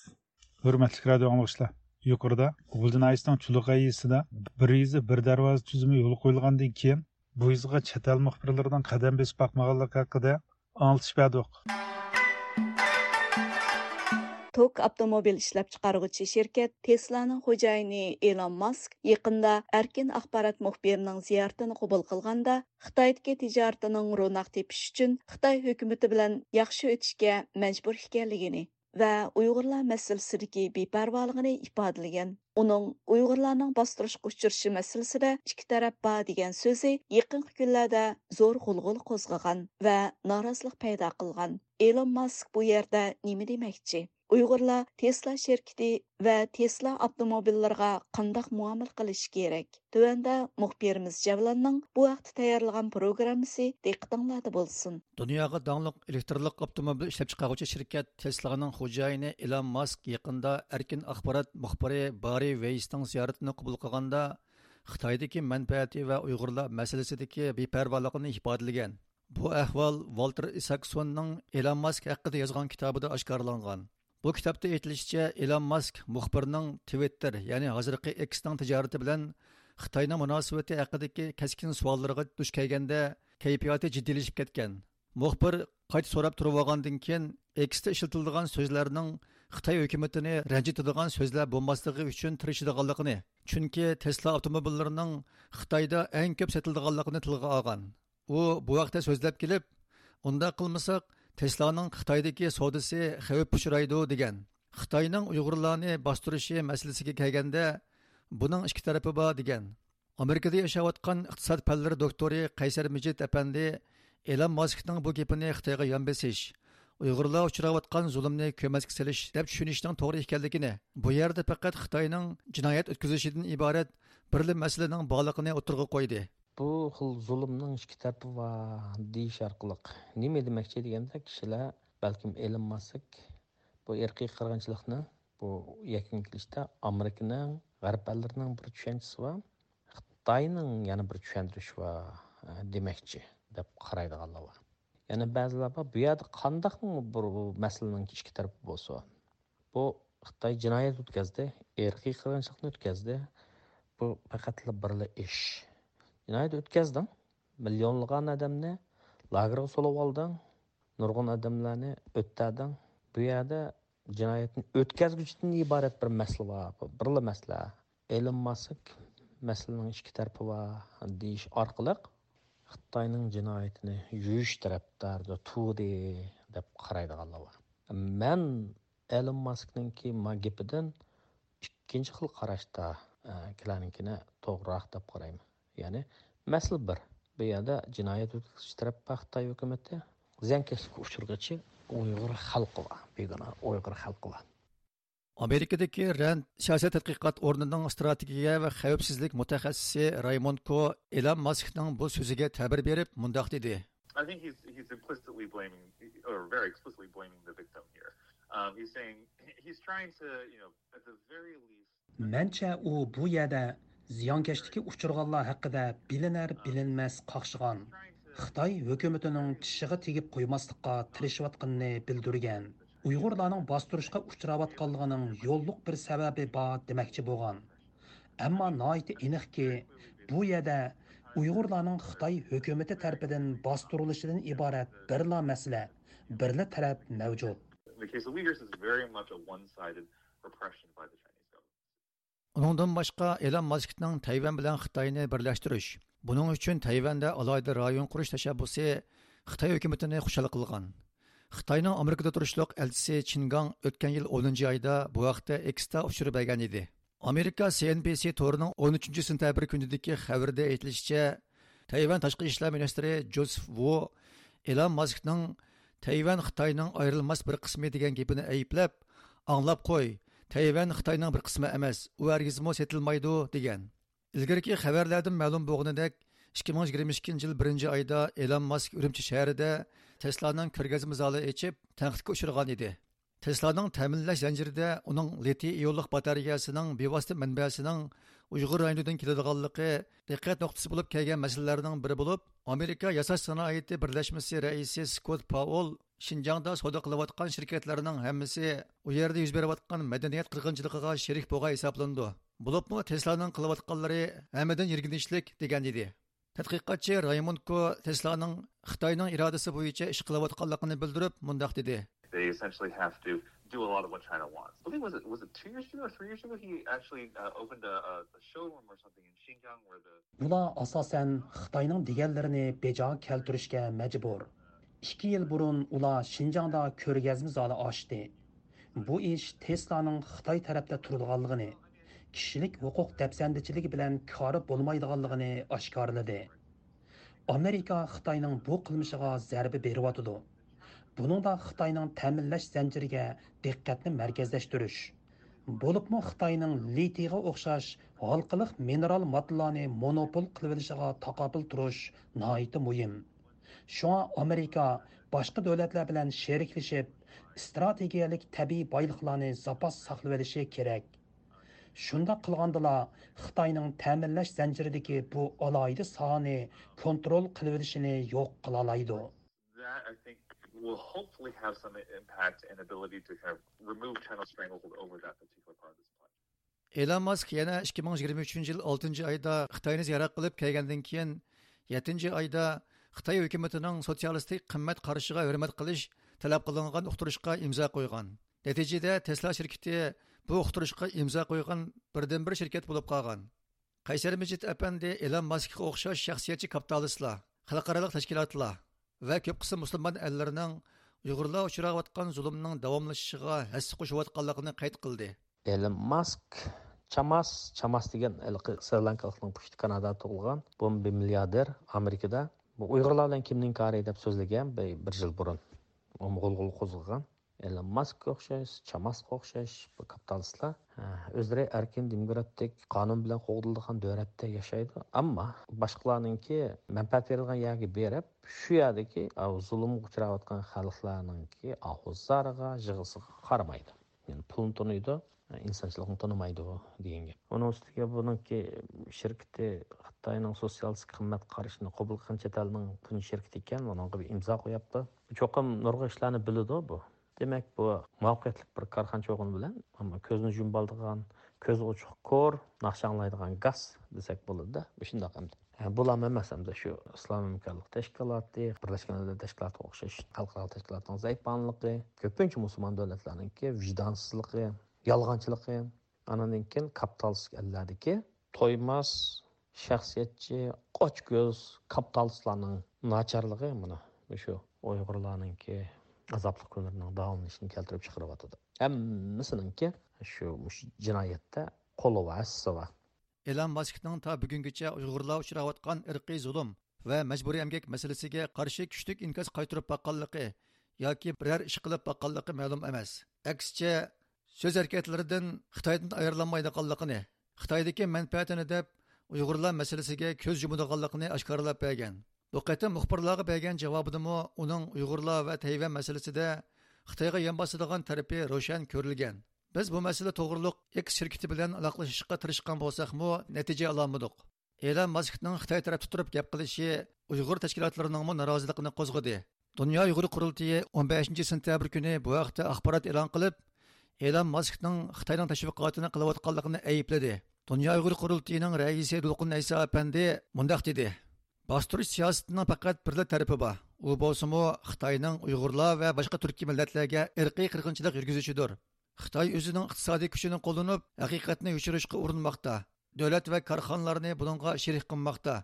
ھۆرمەتلىك رادىئو ئاڭلىغۇچىلار، يۇقىرىدا غۇلجا ناھىيەسىنىڭ چۇلۇقاي يېزىسىدا بىر يېزا بىر دەرۋازا تۈزۈمى يولغا قويۇلغاندىن كېيىن، بۇ يېزىغا چەت ئەل مۇخبىرلىرىنىڭ قەدەم بېسىپ باقمىغانلىقى ھەققىدە ئاڭلىتىش بەردۇق. توك ئاپتوموبىل ئىشلەپچىقارغۇچى شىركەت تېسلانىڭ خوجايىنى ئېلون ماسك يېقىندا ئەركىن ئاخبارات مۇخبىرىنىڭ زىيارىتىنى قوبۇل قىلغاندا، خىتايدىكى تىجارىتىنىڭ روناق تېپىشى ئۈچۈن خىتاي ھۆكۈمىتى بىلەن ياخشى ئۆتۈشكە مەجبۇر ئىكەنلىكىنى ۋە ئۇيغۇرلار مەسىلىسىدىكى بىپەرۋالىقىنى ئىپادىلىگەن. ئۇنىڭ ئۇيغۇرلارنىڭ باستۇرۇشقا ئۇچرىشى مەسىلىسىدە ئىككى تەرەپ بار دېگەن سۆزى يېقىنقى كۈنلەردە زور غۇلغۇلا قوزغىغان ۋە نارازىلىق پەيدا قىلغان. ئېلون ماسك بۇ يەردە نېمە دېمەكچى؟ ئۇيغۇرلار تېسلا شىركىتى ۋە تېسلا ئاپتوموبىللىرىغا قانداق مۇئامىلە قىلىشى كېرەك؟ تۆۋەندە مۇخبىرىمىز جەۋلاننىڭ بۇ ھەقتە تەييارلىغان پروگراممىسى دىققىتىڭلاردا بولسۇن. دۇنياغا داڭلىق ئېلېكترلىق ئاپتوموبىل ئىشلەپچىقارغۇچى شىركەت تېسلانىڭ خوجايىنى ئېلون ماسك يېقىندا ئەركىن ئاخبارات مۇخبىرى باررى ۋېيسنىڭ زىيارىتىنى قوبۇل قىلغاندا، خىتايدىكى مەنپەئەتى ۋە ئۇيغۇرلار مەسىلىسىدىكى بىپەرۋالىقىنى ئىپادىلىگەن. بۇ ئەھۋال ۋالتېر ئىساكسوننىڭ ئېلون ماسك ھەققىدە يازغان كىتابىدا ئاشكارىلانغان. بۇ كىتابتا ئېيتىلىشىچە، ئېلون ماسك مۇخبىرنىڭ تىۋىتتېر، يەنى ھازىرقى ئېكسنىڭ تىجارىتى بىلەن خىتاينىڭ مۇناسىۋىتى ھەققىدىكى كەسكىن سوئاللىرىغا دۇچ كەلگەندە، كەيپىياتى جىددىيلىشىپ كەتكەن. مۇخبىر قايتا سوراپ تۇرۇۋالغاندىن كېيىن، ئېكستا ئىشلىتىلىدىغان سۆزلەرنىڭ خىتاي ھۆكۈمىتىنى رەنجىتىدىغان سۆزلەر بولماسلىقى ئۈچۈن تىرىشىدىغانلىقىنى، چۈنكى تېسلا ئاپتوموبىللىرىنىڭ خىتايدا ئەڭ كۆپ سېتىلىدىغانلىقىنى تىلغا ئالغان. ئۇ بۇ ھەقتە سۆزلەپ كېلىپ، ئۇنداق قىلمىساق، تېسلانىڭ خىتايدىكى سودىسى خەۋپكە ئۇچرايدۇ، دېگەن. خىتاينىڭ ئۇيغۇرلارنى باستۇرۇشى مەسىلىسىگە كەلگەندە، بۇنىڭ ئىككى تەرىپى بار، دېگەن. ئامېرىكىدا ياشاۋاتقان ئىقتىساد پەنلىرى دوكتورى قەيسەر مىجىت ئەپەندى ئېلون ماسكنىڭ بۇ گېپىنى خىتايغا يان بېسىش، ئۇيغۇرلار ئۇچراۋاتقان زۇلۇمنى كۆمەچكە سېلىش دەپ چۈشىنىشنىڭ توغرا ئىكەنلىكىنى، بۇ يەردە پەقەت خىتاينىڭ جىنايەت ئۆتكۈزۈشىدىن ئىبارەت بىرلا مەسىلىنىڭ بارلىقىنى ئوتتۇرىغا قويدى. بۇ خىل زۇلۇمنىڭ ئىككى تەرىپى بار دېيىش ئارقىلىق نېمە دېمەكچى دېگەندە، كىشىلەر بەلكىم ئېلون ماسك بۇ ئىرقىي قىرغىنچىلىقنى، بۇ يەكۈنگە كېلىشتە ئامېرىكىنىڭ، غەرب ئەللىرىنىڭ بىر چۈشەنچىسى بار، خىتاينىڭ يەنە بىر چۈشەندۈرۈشى بار، ئە، دېمەكچى دەپ قارايدىغانلار بار. يەنە بەزىلەر بار، بۇ يەردە قانداقمۇ بىر مەسىلىنىڭ ئىككى تەرىپى بولسۇن؟ بۇ خىتاي جىنايەت ئۆتكەزدى، ئىرقىي قىرغىنچىلىقنى ئۆتكەزدى. بۇ پەقەتلا بىرلا ئىش. جىنايەت ئۆتكەزدىڭ، مىليونلىغان ئادەمنى لاگېرغا سولىۋالدىڭ، نۇرغۇن ئادەملەرنى ئۆلتۈردۈڭ. بۇ يەردە جىنايەتنى ئۆتكەزگۈچىدىن ئىبارەت بىر مەسىلە بار، بىرلا مەسىلە. ئېلون ماسك مەسىلىنىڭ ئىككى تەرىپى بار دېيىش ئارقىلىق خىتاينىڭ جىنايىتىنى يۇيۇش تەرەپدارىدا تۇردى دەپ قارايدىغانلار بار. مەن ئېلون ماسكنىڭكى ما گېپىدىن ئىككىنچى خىل قاراشتا، ئە، كىلارنىڭكىنى توغرىراق دەپ قارايمەن. يەنى مەسىلە بىر. بۇ يەردە جىنايەت ئۆتكۈزۈش تەرەپ بار خىتاي ھۆكۈمىتى. زىيانكەشلىككە ئۇچرىغۇچى ئۇيغۇر خەلقى بار، بىگۇناھ ئۇيغۇر خەلقى بار. ئامېرىكىدىكى رەند سىياسەت تەتقىقات ئورنىنىڭ ئىستراتېگىيە ۋە خەۋپسىزلىك مۇتەخەسسىسى رايموند كو ئېلان ماسكنىڭ بۇ سۆزىگە تەبىر بېرىپ مۇنداق دېدى. I think he's, he's implicitly blaming, or very explicitly blaming the victim here. Um, he's saying, he's trying to, you know, at the very least, مەنچە ئۇ بۇ يەردە زىيانكەشلىككە ئۇچرىغانلار ھەققىدە بىلىنەر بىلىنمەس قاقشىغان، خىتاي ھۆكۈمىتىنىڭ چىشىغا تېگىپ قويماسلىققا تىرىشىۋاتقىنىنى بىلدۈرگەن. ئۇيغۇرلارنىڭ باستۇرۇشقا ئۇچراۋاتقانلىقىنىڭ يوللۇق بىر سەۋەبى بار دېمەكچى بولغان. ئەمما ناھايىتى ئېنىقكى، بۇ يەردە ئۇيغۇرلارنىڭ خىتاي ھۆكۈمىتى تەرىپىدىن باستۇرۇلۇشىدىن ئىبارەت بىرلا مەسىلە، بىرلا تەرەپ مەۋجۇت. The case of Uyghurs is very much a one-sided repression by the Chinese government. ئۇنىڭدىن باشقا، ئېلان ماسكنىڭ تەيۋەن بىلەن خىتاينى بىرلەشتۈرۈش، بۇنىڭ ئۈچۈن تەيۋەندە ئالاھىدە رايون قۇرۇش تەشەببۇسى خىتاي ھۆكۈمىتىنى خۇشال قىلغان. خىتاينىڭ ئامېرىكىدا تۇرۇشلۇق ئەلچىسى چىن گاڭ ئۆتكەن يىل ئونىنچى ئايدا بۇ ھەقتە ئېكستا ئۇچۇر بەرگەن ئىدى. ئامېرىكا سى ئېن بى سى تورىنىڭ ئون ئۈچىنچى سېنتەبىر كۈنىدىكى خەۋىرىدە ئېيتىلىشىچە، تەيۋەن تاشقى ئىشلار مىنىستىرى جوزېف ۋۇ ئېلان ماسكنىڭ تەيۋەن خىتاينىڭ ئايرىلماس بىر قىسمى دېگەن گېپىنى ئەيىبلەپ، ئاڭلاپ قوي، تەيۋەن خىتاينىڭ بىر قىسمى ئەمەس، ئۇ ھەرگىزمۇ سېتىلمايدۇ، دېگەن. ئىلگىرىكى خەۋەرلەردىن مەلۇم بولغىنىدەك، ئىككى مىڭ يىگىرمە ئىككىنچى يىل بىرىنچى ئايدا ئېلان ماسك ئۈرۈمچى شەھىرىدە تېسلانىڭ كۆرگەزمە زالى ئېچىپ، تەنقىدكە ئۇچرىغان ئىدى. تېسلانىڭ تەمىنلەش زەنجىرىدە ئۇنىڭ لىتىي ئىيونلۇق باتارېيەسىنىڭ بىۋاسىتە مەنبەسىنىڭ ئۇيغۇر رايونىدىن كېلىدىغانلىقى دىققەت نۇقتىسى بولۇپ كەلگەن مەسىلىلەرنىڭ بىرى بولۇپ، ئامېرىكا ياساش سانائىتى بىرلەشمىسى رەئىسى سكوت پاۋېل شىنجاڭدا سودا قىلىۋاتقان شىركەتلەرنىڭ ھەممىسى ئۇ يەردە يۈز بېرىۋاتقان مەدەنىيەت قىرغىنچىلىقىغا شېرىك بولغان ھېسابلىنىدۇ. بولۇپمۇ تېسلانىڭ قىلىۋاتقانلىرى ھەممىدىن يىرگىنچلىك، دېگەن ئىدى. تەتقىقاتچى رايموند كو تېسلانىڭ خىتاينىڭ ئىرادىسى بويىچە ئىش قىلىۋاتقانلىقىنى بىلدۈرۈپ، مۇنداق دېدى. They essentially have to do a lot of what China wants. I believe, was it, was it two years ago or three years ago he actually uh, opened a, a showroom or something in Xinjiang where the ئۇلار ئاساسەن خىتاينىڭ دېگەنلىرىنى بېجا كەلتۈرۈشكە مەجبۇر. ئىككى يىل بۇرۇن ئۇلار شىنجاڭدا كۆرگەزمە زالى ئاچتى. بۇ ئىش تېسلانىڭ خىتاي تەرەپتە تۇرىدىغانلىقىنى، كىشىلىك ھوقۇق دەپسەندىچىلىكى بىلەن كارى بولمايدىغانلىقىنى ئاشكارىلىدى. ئامېرىكا خىتاينىڭ بۇ قىلمىشىغا زەربە بېرىۋاتىدۇ. بۇنىڭدا خىتاينىڭ تەمىنلەش زەنجىرىگە دىققەتنى مەركەزلەشتۈرۈش، بولۇپمۇ خىتاينىڭ لىتىيغا ئوخشاش ھالقىلىق مىنېرال ماددىلارنى مونوپول قىلىۋېلىشىغا تاقابىل تۇرۇش ناھايىتى مۇھىم. شۇڭا ئامېرىكا باشقا دۆلەتلەر بىلەن شېرىكلىشىپ، ئىستراتېگىيەلىك تەبىئىي بايلىقلارنى زاپاس ساقلىۋېلىشى كېرەك. شۇنداق قىلغاندىلا، خىتاينىڭ تەمىنلەش زەنجىرىدىكى بۇ ئالاھىدە ساھەنى كونترول قىلىۋېلىشىنى يوق قىلالايدۇ. That, I think, will hopefully have some impact and ability to kind of remove China's stranglehold over that particular part of the supply chain. ئېلان ماسك يەنە ئىككى مىڭ يىگىرمە ئۈچىنچى يىل ئالتىنچى ئايدا خىتاينى زىيارەت قىلىپ كەلگەندىن كېيىن، يەتتىنچى ئايدا خىتاي ھۆكۈمىتىنىڭ سوتسىيالىستىك قىممەت قارىشىغا ھۆرمەت قىلىش تەلەپ قىلىنغان ئۇقتۇرۇشقا ئىمزا قويغان. نەتىجىدە، تېسلا شىركىتى بۇ ئۇقتۇرۇشقا ئىمزا قويغان بىردىنبىر شىركەت بولۇپ قالغان. قەيسەر مىجىت ئەپەندى ئېلان ماسكقا ئوخشاش شەخسىيەتچى كاپىتالىستلار، خەلقئارالىق تەشكىلاتلار ۋە كۆپ قىسىم مۇسۇلمان ئەللىرىنىڭ ئۇيغۇرلار ئۇچراۋاتقان زۇلۇمنىڭ داۋاملىشىشىغا ھەسسە قوشۇۋاتقانلىقىنى قەيت قىلدى. ئېلون ماسك چاماس، چاماس دېگەن ھېلىقى سرى لانكالىقنىڭ پۇشتى كانادادا تۇغۇلغان بۇ بىر مىلياردېر ئامېرىكىدا. بۇ ئۇيغۇرلار بىلەن كىمنىڭ كارى دەپ سۆزلىگەن بىر، بىر يىل بۇرۇن. ئۇمۇ غۇلغۇلا قوزغىغان. ئېلون ماسكقا ئوخشاش، چاماسقا ئوخشاش بۇ كاپىتالىستلار، ھە، ئۆزلىرى ئەركىن دېموكراتىك قانۇن بىلەن قوغدىلىدىغان دۆلەتتە ياشايدۇ. ئەمما باشقىلارنىڭكى مەنپەئەت بېرىدىغان يەرگە بېرىپ، شۇ يەردىكى، ئاۋۇ زۇلۇمغا ئۇچراۋاتقان خەلقلەرنىڭكى ئاھۇ زارىغا، يىغىسىغا قارىمايدۇ. يەنى پۇلنى تونۇيدۇ، ئىنسانچىلىقنى تونۇمايدۇ دېگەن گەپ. ئۇنىڭ ئۈستىگە بۇنىڭكى شىركىتى خىتاينىڭ سوتسىيالىستىك قىممەت قارىشىنى قوبۇل قىلغان چەت ئەلنىڭ تۇنجى شىركىتى ئىكەن، ئۇنىڭغا بىر ئىمزا قويۇپتۇ. چوقۇم نۇرغۇن ئىشلارنى بىلىدۇ بۇ. دېمەك، بۇ مۇۋەپپەقىيەتلىك بىر كارخانىچى بولغىنى بىلەن، ئەمما كۆزنى يۇمۇۋالىدىغان، كۆزى ئوچۇق كور، ناخشا ئاڭلايدىغان گاس دېسەك بولىدۇ-دە، مۇشۇنداق ئەمدى. ھە، بۇلارمۇ ئەمەس ئەمدى شۇ ئىسلام ھەمكارلىق تەشكىلاتى، بىرلەشكەن دۆلەتلەر تەشكىلاتىغا ئوخشاش خەلقئارا تەشكىلاتنىڭ زەئىپانلىقى، كۆپىنچە مۇسۇلمان دۆلەتلەرنىڭكى ۋىجدانسىزلىقى، يالغانچىلىقى، ئانىڭدىن كېيىن كاپىتالىستىك ئەللەردىكى تويماس، شەخسىيەتچى، ئاچكۆز كاپىتالىستلارنىڭ ناچارلىقى مانا مۇشۇ ئۇيغۇرلارنىڭكى ئازابلىق كۈنلىرىنىڭ داۋاملىنىشىنى كەلتۈرۈپ چىقىرىۋاتىدۇ. ھەممىسىنىڭكى شۇ، مۇشۇ جىنايەتتە قولى بار، ھەسسىسى بار. ئېلان ماسكنىڭ تا بۈگۈنگىچە ئۇيغۇرلار ئۇچراۋاتقان ئىرقىي زۇلۇم ۋە مەجبۇرىي ئەمگەك مەسىلىسىگە قارشى كۈچلۈك ئىنكاس قايتۇرۇپ باققانلىقى ياكى بىرەر ئىش قىلىپ باققانلىقى مەلۇم ئەمەس. ئەكسىچە، سۆز ھەرىكەتلىرىدىن خىتايدىن ئايرىلالمايدىغانلىقىنى، خىتايدىكى مەنپەئەتىنى دەپ، ئۇيغۇرلار مەسىلىسىگە كۆز يۇمىدىغانلىقىنى ئاشكارىلاپ بەرگەن. بۇ قېتىم مۇخبىرلارغا بەرگەن جاۋابىدىمۇ ئۇنىڭ ئۇيغۇرلار ۋە تەيۋەن مەسىلىسىدە خىتايغا يان باسىدىغان تەرىپى روشەن كۆرۈلگەن. بىز بۇ مەسىلە توغرۇلۇق ئېكس شىركىتى بىلەن ئالاقىلىشىشقا تىرىشقان بولساقمۇ، نەتىجە ئالالمىدۇق. ئېلان ماسكنىڭ خىتاي تەرەپتە تۇرۇپ گەپ قىلىشى ئۇيغۇر تەشكىلاتلىرىنىڭمۇ نارازىلىقىنى قوزغىدى. دۇنيا ئۇيغۇر قۇرۇلتىيى ئون بەشىنچى سېنتەبىر كۈنى بۇ ھەقتە ئاخبارات ئېلان قىلىپ، ئېلان ماسكنىڭ خىتاينىڭ تەشۋىقاتىنى قىلىۋاتقانلىقىنى ئەيىبلىدى. دۇنيا ئۇيغۇر قۇرۇلتىيىنىڭ رەئىسى دولقۇن ئەيسا ئەپەندى مۇنداق دېدى: باستۇرۇش سىياسىتىنىڭ پەقەت بىرلا تەرىپى بار، ئۇ بولسىمۇ خىتاينىڭ ئۇيغۇرلار ۋە باشقا تۈركىي مىللەتلەرگە ئىرقىي قىرغىنچىلىق يۈرگۈزۈشىدۇر. خىتاي ئۆزىنىڭ ئىقتىسادىي كۈچىنى قوللىنىپ، ھەقىقەتنى يوشۇرۇشقا ئۇرۇنماقتا. دۆلەت ۋە كارخانىلارنى بۇنىڭغا شېرىك قىلماقتا.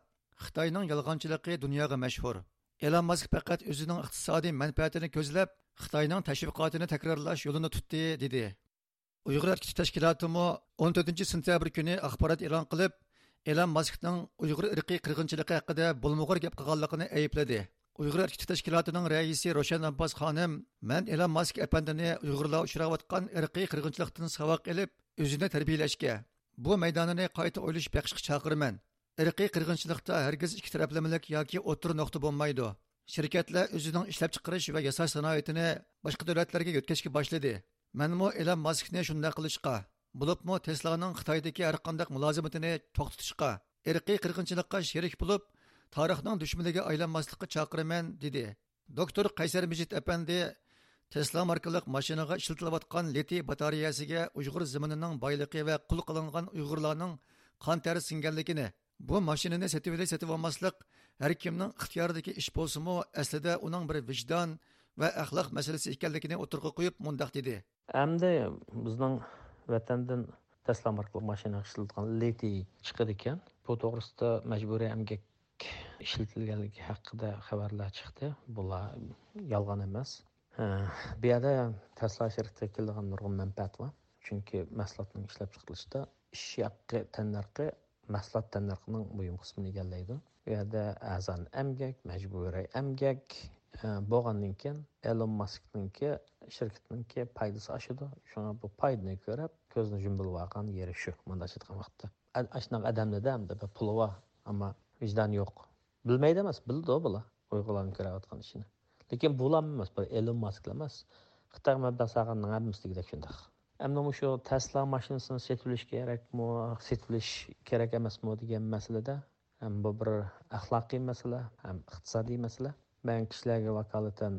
خىتاينىڭ يالغانچىلىقى دۇنياغا مەشھۇر. ئېلان ماسك پەقەت ئۆزىنىڭ ئىقتىسادىي مەنپەئەتىنى كۆزلەپ، خىتاينىڭ تەشۋىقاتىنى تەكرارلاش يولىنى تۇتتى، دېدى. ئۇيغۇر ھەرىكىتى تەشكىلاتىمۇ ئون تۆتىنچى سېنتەبىر كۈنى ئاخبارات ئېلان قىلىپ، ئېلان ماسكنىڭ ئۇيغۇر ئىرقىي قىرغىنچىلىقى ھەققىدە بولمىغۇر گەپ قىلغانلىقىنى ئەيىبلىدى. ئۇيغۇر ھەرىكىتى تەشكىلاتىنىڭ رەئىسى روشەن ئابباس خانىم، مەن ئېلان ماسك ئەپەندىنى ئۇيغۇرلار ئۇچراۋاتقان ئىرقىي قىرغىنچىلىقتىن ساۋاق ئېلىپ، ئۆزىنى تەربىيەلەشكە، بۇ مەيدانىنى قايتا ئويلىشىپ بېقىشقا چاقىرىمەن. ئىرقىي قىرغىنچىلىقتا ھەرگىز ئىككى تەرەپلىمىلىك ياكى ئوتتۇرا نۇقتا بولمايدۇ. شىركەتلەر ئۆزىنىڭ ئىشلەپچىقىرىش ۋە ياساش سانائىتىنى باشقا دۆلەتلەرگە يۆتكەشكە باشلىدى. مەنمۇ ئېلان ماسكنى شۇنداق قىلىشقا، بولۇپمۇ تېسلانىڭ خىتايدىكى ھەرقانداق مۇلازىمىتىنى توختىتىشقا، ئىرقىي قىرغىنچىلىققا شېرىك بولۇپ، تارىخنىڭ دۈشمىنىگە ئايلانماسلىققا چاقىرىمەن، دېدى. دوكتور قەيسەر مىجىت ئەپەندى تېسلا ماركىلىق ماشىنىغا ئىشلىتىلىۋاتقان لىتىي باتارېيەسىگە ئۇيغۇر زېمىنىنىڭ بايلىقى ۋە قۇل قىلىنغان ئۇيغۇرلارنىڭ قان تەرى سىڭگەنلىكىنى، بۇ ماشىنىنى سېتىۋېلىش، سېتىۋالماسلىق ھەر كىمنىڭ ئىختىيارىدىكى ئىش بولسىمۇ، ئەسلىدە ئۇنىڭ بىر ۋىجدان ۋە ئەخلاق مەسىلىسى ئىكەنلىكىنى ئوتتۇرىغا قويۇپ، مۇنداق دېدى. ئەمدى بىزنىڭ ۋەتەندىن تەسلا ماركىلىق ماشىنا ئىشلىتىدىغان لىتىي چىقىدىكەن. بۇ توغرىسىدا مەجبۇرىي ئەمگەك ئىشلىتىلگەنلىكى ھەققىدە خەۋەرلەر چىقتى. بۇلار يالغان ئەمەس. ھە، بۇ يەردە تەسلا شىركىتىگە كېلىدىغان نۇرغۇن مەنپەئەت بار. چۈنكى مەھسۇلاتنىڭ ئىشلەپچىقىرىلىشىدا ئىش ھەققى، تەننەرخى مەھسۇلات تەننەرخىنىڭ مۇھىم قىسمىنى ئىگىلەيدۇ. بۇ يەردە ئەرزان ئەمگەك، مەجبۇرىي ئەمگەك، ئە، بولغاندىن كېيىن ئېلون ماسكنىڭكى شىركىتىنىڭكى پايدىسى ئاشىدۇ. شۇڭا بۇ پايدىنى كۆرۈپ، كۆزنى يۇمۇۋالغان يېرى شۇ، مۇنداق ئېيتقان ۋاقىتتا. ئە-، ئاشۇنداق ئادەملەردە ئەمدى بىر پۇلى بار، ئەمما ۋىجدانى يوق. بىلمەيدۇ ئەمەس، بىلىدۇ بۇلار ئۇيغۇرلارنىڭ كۆرۈۋاتقان ئىشىنى. لېكىن بۇلارمۇ ئەمەس، بىر ئېلون ماسكلا ئەمەس. خىتايغا مەبلەغ سالغاننىڭ ھەممىسى دېگۈدەك شۇنداق. ئەمدى مۇشۇ تەسلا ماشىنىسىنى سېتىۋېلىش كېرەكمۇ، سېتىۋېلىش كېرەك ئەمەسمۇ دېگەن مەسىلىدە، ھەم بۇ بىر ئەخلاقىي مەسىلە، ھەم ئىقتىسادىي مەسىلە. مەن كىشىلەرگە ۋاكالىتەن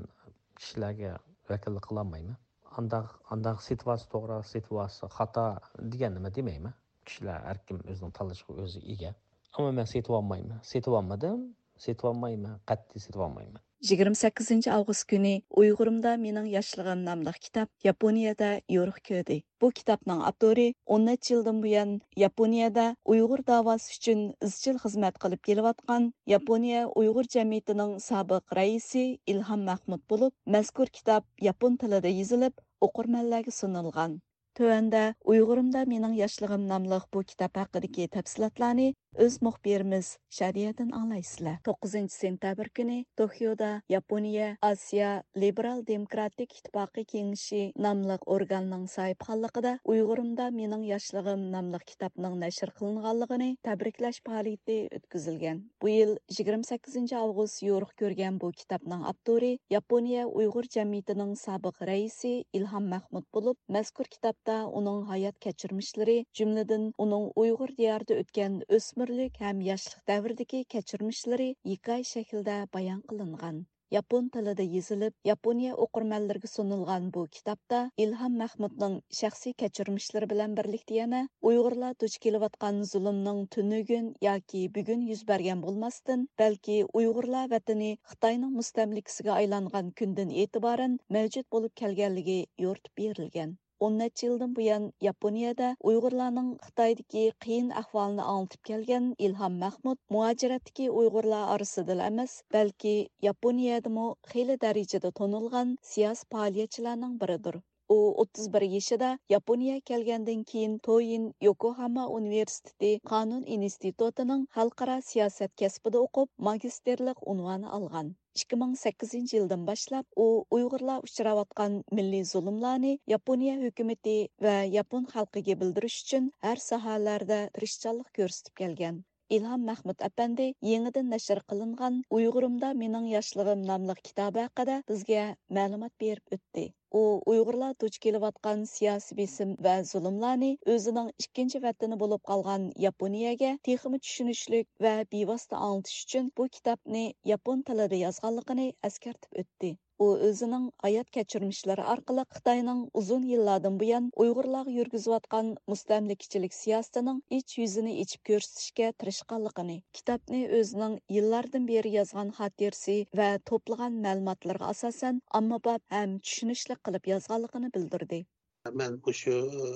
كىشىلەرگە ۋەكىللىك قىلالمايمەن. ئانداق، ئانداق سېتىۋالسا توغرا، سېتىۋالسا خاتا دېگەننى مەن دېمەيمەن. كىشىلەر ھەركىم ئۆزىنىڭ تاللىشىغا ئۆزى ئىگە. ئەمما مەن سېتىۋالمايمەن. سېتىۋالمىدىم. سېتىۋالمايمەن. قەتئىي سېتىۋالمايمەن. يىگىرمە سەككىزىنچى ئاۋغۇست كۈنى ئۇيغۇرۇمدا مېنىڭ ياشلىقىم ناملىق كىتاب ياپونىيەدە يورۇق كۆردى. بۇ كىتابنىڭ ئاپتورى ئون نەچچە يىلدىن بۇيان ياپونىيەدە ئۇيغۇر داۋاسى ئۈچۈن ئىزچىل خىزمەت قىلىپ كېلىۋاتقان ياپونىيە ئۇيغۇر جەمئىيىتىنىڭ سابىق رەئىسى ئىلھام مەخمۇت بولۇپ، مەزكۇر كىتاب ياپون تىلىدا يېزىلىپ، ئوقۇرمەنلەرگە سۇنۇلغان. تۆۋەندە ئۇيغۇرۇمدا مېنىڭ ياشلىقىم ناملىق بۇ كىتاب ھەققىدىكى تەپسىلاتلارنى ئۆز مۇخبىرىمىز شادىيەدىن ئاڭلايسىلەر. توققۇزىنچى سېنتەبىر كۈنى توكيودا ياپونىيە ئاسىيا لىبېرال دېموكراتىك ئىتتىپاقى كېڭىشى ناملىق ئورگاننىڭ ساھىبخانلىقىدا ئۇيغۇرۇمدا مېنىڭ ياشلىقىم ناملىق كىتابنىڭ نەشر قىلىنغانلىقىنى تەبرىكلەش پائالىيىتى ئۆتكۈزۈلگەن. بۇ يىل يىگىرمە سەككىزىنچى ئاۋغۇست يورۇق كۆرگەن بۇ كىتابنىڭ ئاپتورى ياپونىيە ئۇيغۇر جەمئىيىتىنىڭ سابىق رەئىسى ئىلھام مەخمۇت بولۇپ، مەزكۇر كىتابتا ئۇنىڭ ھايات كەچۈرمىشلىرى، جۈملىدىن ئۇنىڭ ئۇيغۇر دىيارىدا ئۆتكەن ئۆسمۈرلۈك ھەم ياشلىق دەۋرىدىكى كەچۈرمىشلىرى ھېكايە شەكلىدە بايان قىلىنغان. ياپون تىلىدا يېزىلىپ، ياپونىيە ئوقۇرمەنلىرىگە سۇنۇلغان بۇ كىتابتا ئىلھام مەخمۇتنىڭ شەخسىي كەچۈرمىشلىرى بىلەن بىرلىكتە يەنە ئۇيغۇرلار دۇچ كېلىۋاتقان زۇلۇمنىڭ تۈنۈگۈن ياكى بۈگۈن يۈز بەرگەن بولماستىن، بەلكى ئۇيغۇرلار ۋەتىنى خىتاينىڭ مۇستەملىكىسىگە ئايلانغان كۈندىن ئېتىبارەن مەۋجۇت بولۇپ كەلگەنلىكى يورۇتۇپ بېرىلگەن. ئون نەچچە يىلدىن بۇيان ياپونىيەدە ئۇيغۇرلارنىڭ خىتايدىكى قىيىن ئەھۋالىنى ئاڭلىتىپ كەلگەن ئىلھام مەخمۇت مۇھاجىرەتتىكى ئۇيغۇرلار ئارىسىدىلا ئەمەس، بەلكى ياپونىيەدىمۇ خېلى دەرىجىدە تونۇلغان سىياسىي پائالىيەتچىلەرنىڭ بىرىدۇر. ئۇ ئوتتۇز بىر يېشىدا ياپونىيە كەلگەندىن كېيىن تويىن يوكوھاما ئۇنىۋېرسىتېتى قانۇن ئىنستىتۇتىنىڭ خەلقئارا سىياسەت كەسپىدە ئوقۇپ، ماگىستىرلىق ئۇنۋانى ئالغان. ئىككى مىڭ سەككىزىنچى يىلدىن باشلاپ ئۇ ئۇيغۇرلار ئۇچراۋاتقان مىللىي زۇلۇملارنى ياپونىيە ھۆكۈمىتى ۋە ياپون خەلقىگە بىلدۈرۈش ئۈچۈن ھەر ساھەلەردە تىرىشچانلىق كۆرسىتىپ كەلگەن. ئىلھام مەخمۇت ئەپەندى يېڭىدىن نەشر قىلىنغان ئۇيغۇرۇمدا مېنىڭ ياشلىقىم ناملىق كىتابى ھەققىدە بىزگە مەلۇمات بېرىپ ئۆتتى. ئۇ ئۇيغۇرلار دۇچ كېلىۋاتقان سىياسىي بېسىم ۋە زۇلۇملارنى ئۆزىنىڭ ئىككىنچى ۋەتىنى بولۇپ قالغان ياپونىيەگە تېخىمۇ چۈشىنىشلىك ۋە بىۋاسىتە ئاڭلىتىش ئۈچۈن بۇ كىتابنى ياپون تىلىدا يازغانلىقىنى ئەسكەرتىپ ئۆتتى. ئۇ ئۆزىنىڭ ھايات كەچۈرمىشلىرى ئارقىلىق خىتاينىڭ ئۇزۇن يىللاردىن بۇيان ئۇيغۇرلارغا يۈرگۈزۈۋاتقان مۇستەملىكىچىلىك سىياسىتىنىڭ ئىچ يۈزىنى ئېچىپ كۆرسىتىشكە تىرىشقانلىقىنى، كىتابنى ئۆزىنىڭ يىللاردىن بېرى يازغان خاتىرىسى ۋە توپلىغان مەلۇماتلىرىغا ئاساسەن ئاممىباب ھەم چۈشىنىشلىك قىلىپ يازغانلىقىنى بىلدۈردى. مەن مۇشۇ، ئى،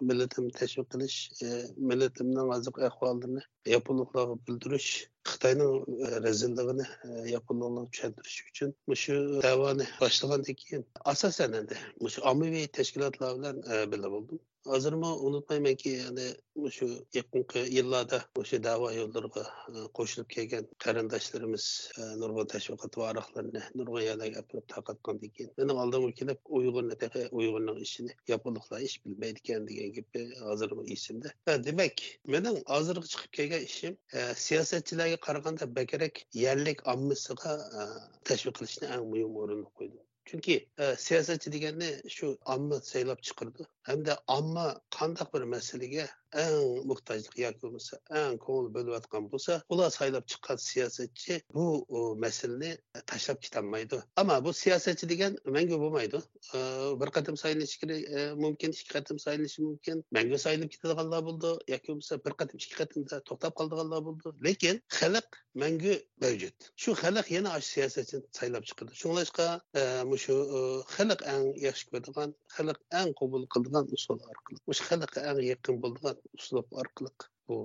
مىللىتىمنى تەشۋىق قىلىش، ئى، مىللىتىمنىڭ ھازىرقى ئەھۋالىنى ياپونلۇقلارغا بىلدۈرۈش، خىتاينىڭ، ئى، رەزىللىقىنى، ئى، ياپونلۇقلارغا چۈشەندۈرۈش ئۈچۈن مۇشۇ دەۋانى باشلىغاندىن كېيىن، ئاساسەن ئەمدى مۇشۇ ئاممىۋى تەشكىلاتلار بىلەن، ئى، بىللە بولدۇم. ھازىرمۇ ئۇنتۇمايمەنكى، يەنى مۇشۇ يېقىنقى يىللاردا مۇشۇ دەۋا يوللىرىغا، ئى، قوشۇلۇپ كەلگەن قېرىنداشلىرىمىز، ئى، نۇرغۇن تەشۋىقات ۋارىقلىرىنى نۇرغۇن يەرلەرگە ئەپىرىپ تارقاتقاندىن كېيىن، مېنىڭ ئالدىمغا كېلىپ، ئۇيغۇرنى تېخى، ئۇيغۇرنىڭ ئىشىنى ياپونلۇقلار ئېچىپ بىلمەيدىكەن دېگەن گېپى ھازىرمۇ ئېسىمدە. ھە، دېمەك، مېنىڭ ھازىرغا چىقىپ كەلگەن ئىشىم، ئە، سىياسەتچىلەرگە قارىغاندا بەكرەك يەرلىك ئاممىسىغا، ئە، تەشۋىق قىلىشنى ئەڭ مۇھىم ئورۇنغا قويدۇم. چۈنكى، ئە، سىياسەتچى دېگەننى شۇ ئامما سايلاپ چىقىرىدۇ. ھەمدە ئامما قانداق بىر مەسىلىگە ئەڭ موھتاجلىق ياكى بولمىسا ئەڭ كۆڭۈل بۆلۈۋاتقان بولسا، ئۇلار سايلاپ چىققان سىياسەتچى بۇ، ئۇ، مەسىلىنى تاشلاپ كېتەلمەيدۇ. ئەمما بۇ سىياسەتچى دېگەن مەڭگۈ بولمايدۇ. ئە، بىر قېتىم سايلىنىشى كېرە-، ئە، مۇمكىن، ئىككى قېتىم سايلىنىشى مۇمكىن. مەڭگۈ سايلىنىپ كېتىدىغانلار بولىدۇ ياكى بولمىسا بىر قېتىم، ئىككى قېتىمدا توختاپ قالىدىغانلار بولىدۇ. لېكىن خەلق مەڭگۈ مەۋجۇت. شۇ خەلق يەنە ئاشۇ سىياسەتچىنى سايلاپ چىقىدۇ. شۇڭلاشقا، ئە، مۇشۇ، ئە، خەلق ئەڭ ياخشى كۆرىدىغان، خەلق ئەڭ قوبۇل قىلىدىغان ئۇسۇل ئارقىلىق، مۇشۇ خەلققە ئەڭ يېقىن بولىدىغان ئۇسلۇب ئارقىلىق بۇ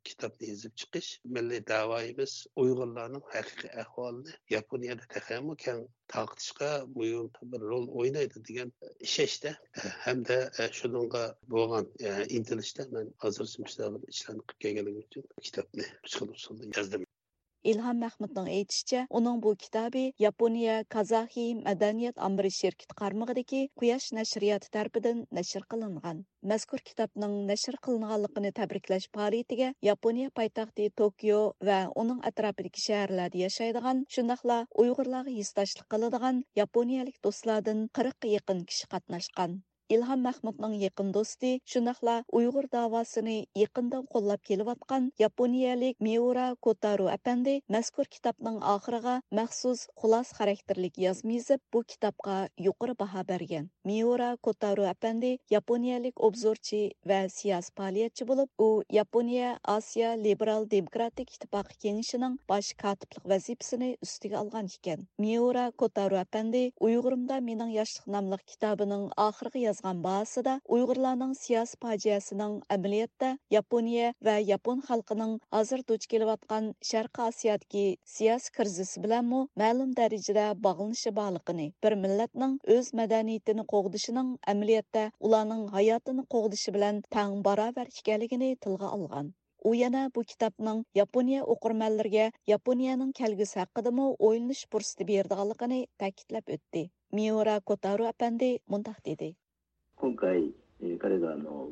كىتابنى يېزىپ چىقىش مىللىي دەۋايىمىز ئۇيغۇرلارنىڭ ھەقىقىي ئەھۋالىنى ياپونىيەدە تېخىمۇ كەڭ تارقىتىشقا مۇھىم بىر رول ئوينايدۇ دېگەن ئىشەنچتە ھەمدە شۇنىڭغا بولغان ئىنتىلىشتا مەن ھازىرچە مۇشۇنداق بىر ئىشلارنى قىلىپ كەلگەنلىكىم ئۈچۈن كىتابنى مۇشۇ خىل ئۇسۇلدا يازدىم. ئىلھام مەخمۇتنىڭ ئېيتىشىچە، ئۇنىڭ بۇ كىتابى ياپونىيە كازاخىي مەدەنىيەت ئامبىرى شىركىتى قارمىقىدىكى قۇياش نەشرىياتى تەرىپىدىن نەشر قىلىنغان. مەزكۇر كىتابنىڭ نەشر قىلىنغانلىقىنى تەبرىكلەش پائالىيىتىگە ياپونىيە پايتەختى توكيو ۋە ئۇنىڭ ئەتراپىدىكى شەھەرلەردە ياشايدىغان، شۇنداقلا ئۇيغۇرلارغا ھېسداشلىق قىلىدىغان ياپونىيەلىك دوستلاردىن قىرىققا يېقىن كىشى قاتناشقان. ئىلھام مەخمۇتنىڭ يېقىن دوستى، شۇنداقلا ئۇيغۇر داۋاسىنى يېقىندىن قوللاپ كېلىۋاتقان ياپونىيەلىك مىئۇرا كوتارو ئەپەندى مەزكۇر كىتابنىڭ ئاخىرىغا مەخسۇس خۇلاسە خاراكتېرلىك يازما يېزىپ، بۇ كىتابقا يۇقىرى باھا بەرگەن. مىئۇرا كوتارو ئەپەندى ياپونىيەلىك ئوبزورچى ۋە سىياسىي پائالىيەتچى بولۇپ، ئۇ ياپونىيە ئاسىيا لىبېرال دېموكراتىك ئىتتىپاقى كېڭىشىنىڭ باش كاتىپلىق ۋەزىپىسىنى ئۈستىگە ئالغان ئىكەن. مىئۇرا كوتارو ئەپەندى ئۇيغۇرۇمدا مېنىڭ ياشلىق ناملىق كىتابىنىڭ ئاخىرىغا يازغان چىققان باھاسىدا ئۇيغۇرلارنىڭ سىياسىي پاجىئەسىنىڭ ئەمەلىيەتتە ياپونىيە ۋە ياپون خەلقىنىڭ ھازىر دۇچ كېلىۋاتقان شەرقىي ئاسىيادىكى سىياسىي كىرىزىس بىلەنمۇ مەلۇم دەرىجىدە باغلىنىشى بارلىقىنى، بىر مىللەتنىڭ ئۆز مەدەنىيىتىنى قوغدىشىنىڭ ئەمەلىيەتتە ئۇلارنىڭ ھاياتىنى قوغدىشى بىلەن تەڭ باراۋەر ئىكەنلىكىنى تىلغا ئالغان. ئۇ يەنە بۇ كىتابنىڭ ياپونىيە ئوقۇرمەنلىرىگە ياپونىيەنىڭ كەلگۈسى ھەققىدىمۇ ئويلىنىش پۇرسىتى بېرىدىغانلىقىنى تەكىتلەپ ئۆتتى. مىئۇرا كوتارو ئەپەندى مۇنداق دېدى. 今回、えー彼があの、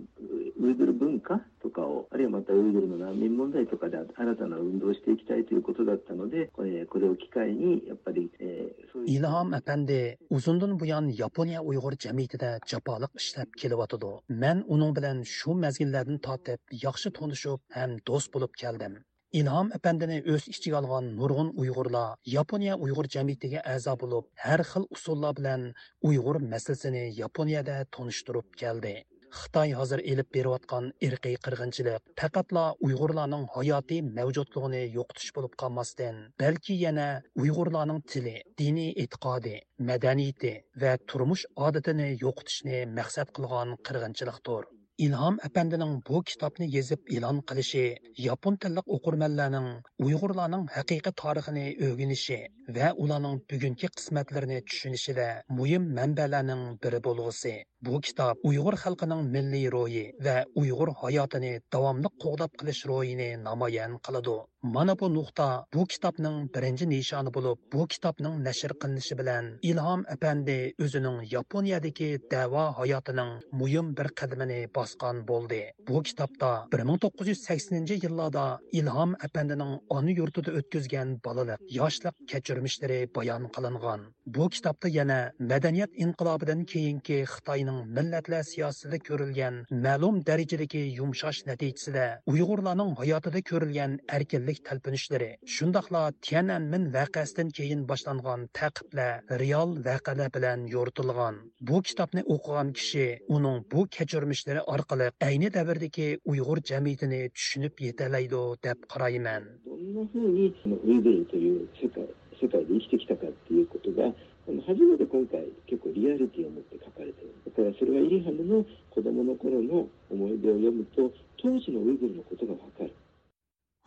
ウイグル文化とかを、あるいはまたウイグルの難民問題とかで新たな運動をしていきたいということだったので、えーこれを機会に、やっぱり、えーそういう ئىلھام ئەپەندى ئۇزۇندىن بۇيان ياپونىيە ئۇيغۇر جەمئىيىتىدە جاپالىق ئىشلەپ كېلىۋاتىدۇ. مەن ئۇنىڭ بىلەن شۇ مەزگىللەردىن تارتىپ ياخشى تونۇشۇپ ھەم دوست بولۇپ كەلدىم. ئىلھام ئەپەندىنى ئۆز ئىچىگە ئالغان نۇرغۇن ئۇيغۇرلار ياپونىيە ئۇيغۇر جەمئىيىتىگە ئەزا بولۇپ، ھەر خىل ئۇسۇللار بىلەن ئۇيغۇر مەسىلىسىنى ياپونىيەدە تونۇشتۇرۇپ كەلدى. خىتاي ھازىر ئېلىپ بېرىۋاتقان ئىرقىي قىرغىنچىلىق پەقەتلا ئۇيغۇرلارنىڭ ھاياتىي مەۋجۇتلۇقىنى يوقىتىش بولۇپ قالماستىن، بەلكى يەنە ئۇيغۇرلارنىڭ تىلى، دىنىي ئېتىقادى، مەدەنىيىتى ۋە تۇرمۇش ئادىتىنى يوقىتىشنى مەقسەت قىلغان قىرغىنچىلىقتۇر. ئىلھام ئەپەندىنىڭ بۇ كىتابنى يېزىپ ئېلان قىلىشى ياپون تىللىق ئوقۇرمەنلەرنىڭ ئۇيغۇرلارنىڭ ھەقىقىي تارىخىنى ئۆگىنىشى ۋە ئۇلارنىڭ بۈگۈنكى قىسمەتلىرىنى چۈشىنىشىدە مۇھىم مەنبەلەرنىڭ بىرى بولغۇسى. بۇ كىتاب ئۇيغۇر خەلقىنىڭ مىللىي روھى ۋە ئۇيغۇر ھاياتىنى داۋاملىق قوغداپ قېلىش روھىنى نامايان قىلىدۇ. مانا بۇ نۇقتا بۇ كىتابنىڭ بىرىنچى نىشانى بولۇپ، بۇ كىتابنىڭ نەشر قىلىنىشى بىلەن ئىلھام ئەپەندى ئۆزىنىڭ ياپونىيەدىكى دەۋا ھاياتىنىڭ مۇھىم بىر قەدىمىنى باسقان بولدى. بۇ كىتابتا بىر مىڭ توققۇز يۈز سەكسىنىنچى يىللاردا ئىلھام ئەپەندىنىڭ ئانا يۇرتىدا ئۆتكۈزگەن بالىلىق، ياشلىق كەچۈرمىشلىرى بايان قىلىنغان. بۇ كىتابتا يەنە مەدەنىيەت ئىنقىلابىدىن كېيىنكى خىتاينىڭ مىللەتلەر سىياسىتىدە كۆرۈلگەن مەلۇم دەرىجىدىكى يۇمشاش نەتىجىسىدە ئۇيغۇرلارنىڭ ھاياتىدا كۆرۈلگەن ئەركىنلىك تەلپۈنۈشلىرى، شۇنداقلا تيەنئەنمېن ۋەقەسىدىن كېيىن باشلانغان تەقىبلەر رېئال ۋەقەلەر بىلەن يورۇتۇلغان. بۇ كىتابنى ئوقۇغان كىشى ئۇنىڭ بۇ كەچۈرمىشلىرى ئارقىلىق ئەينى دەۋردىكى ئۇيغۇر جەمئىيىتىنى چۈشىنىپ يېتەلەيدۇ دەپ قارايمەن. どんな風にそのウイグルという世界世界で生きてきたかっていうことが、あの初めて今回結構リアリティを持って書かれてる。だからそれはイリハムの子供の頃の思い出を読むと、当時のウイグルのことがわかる。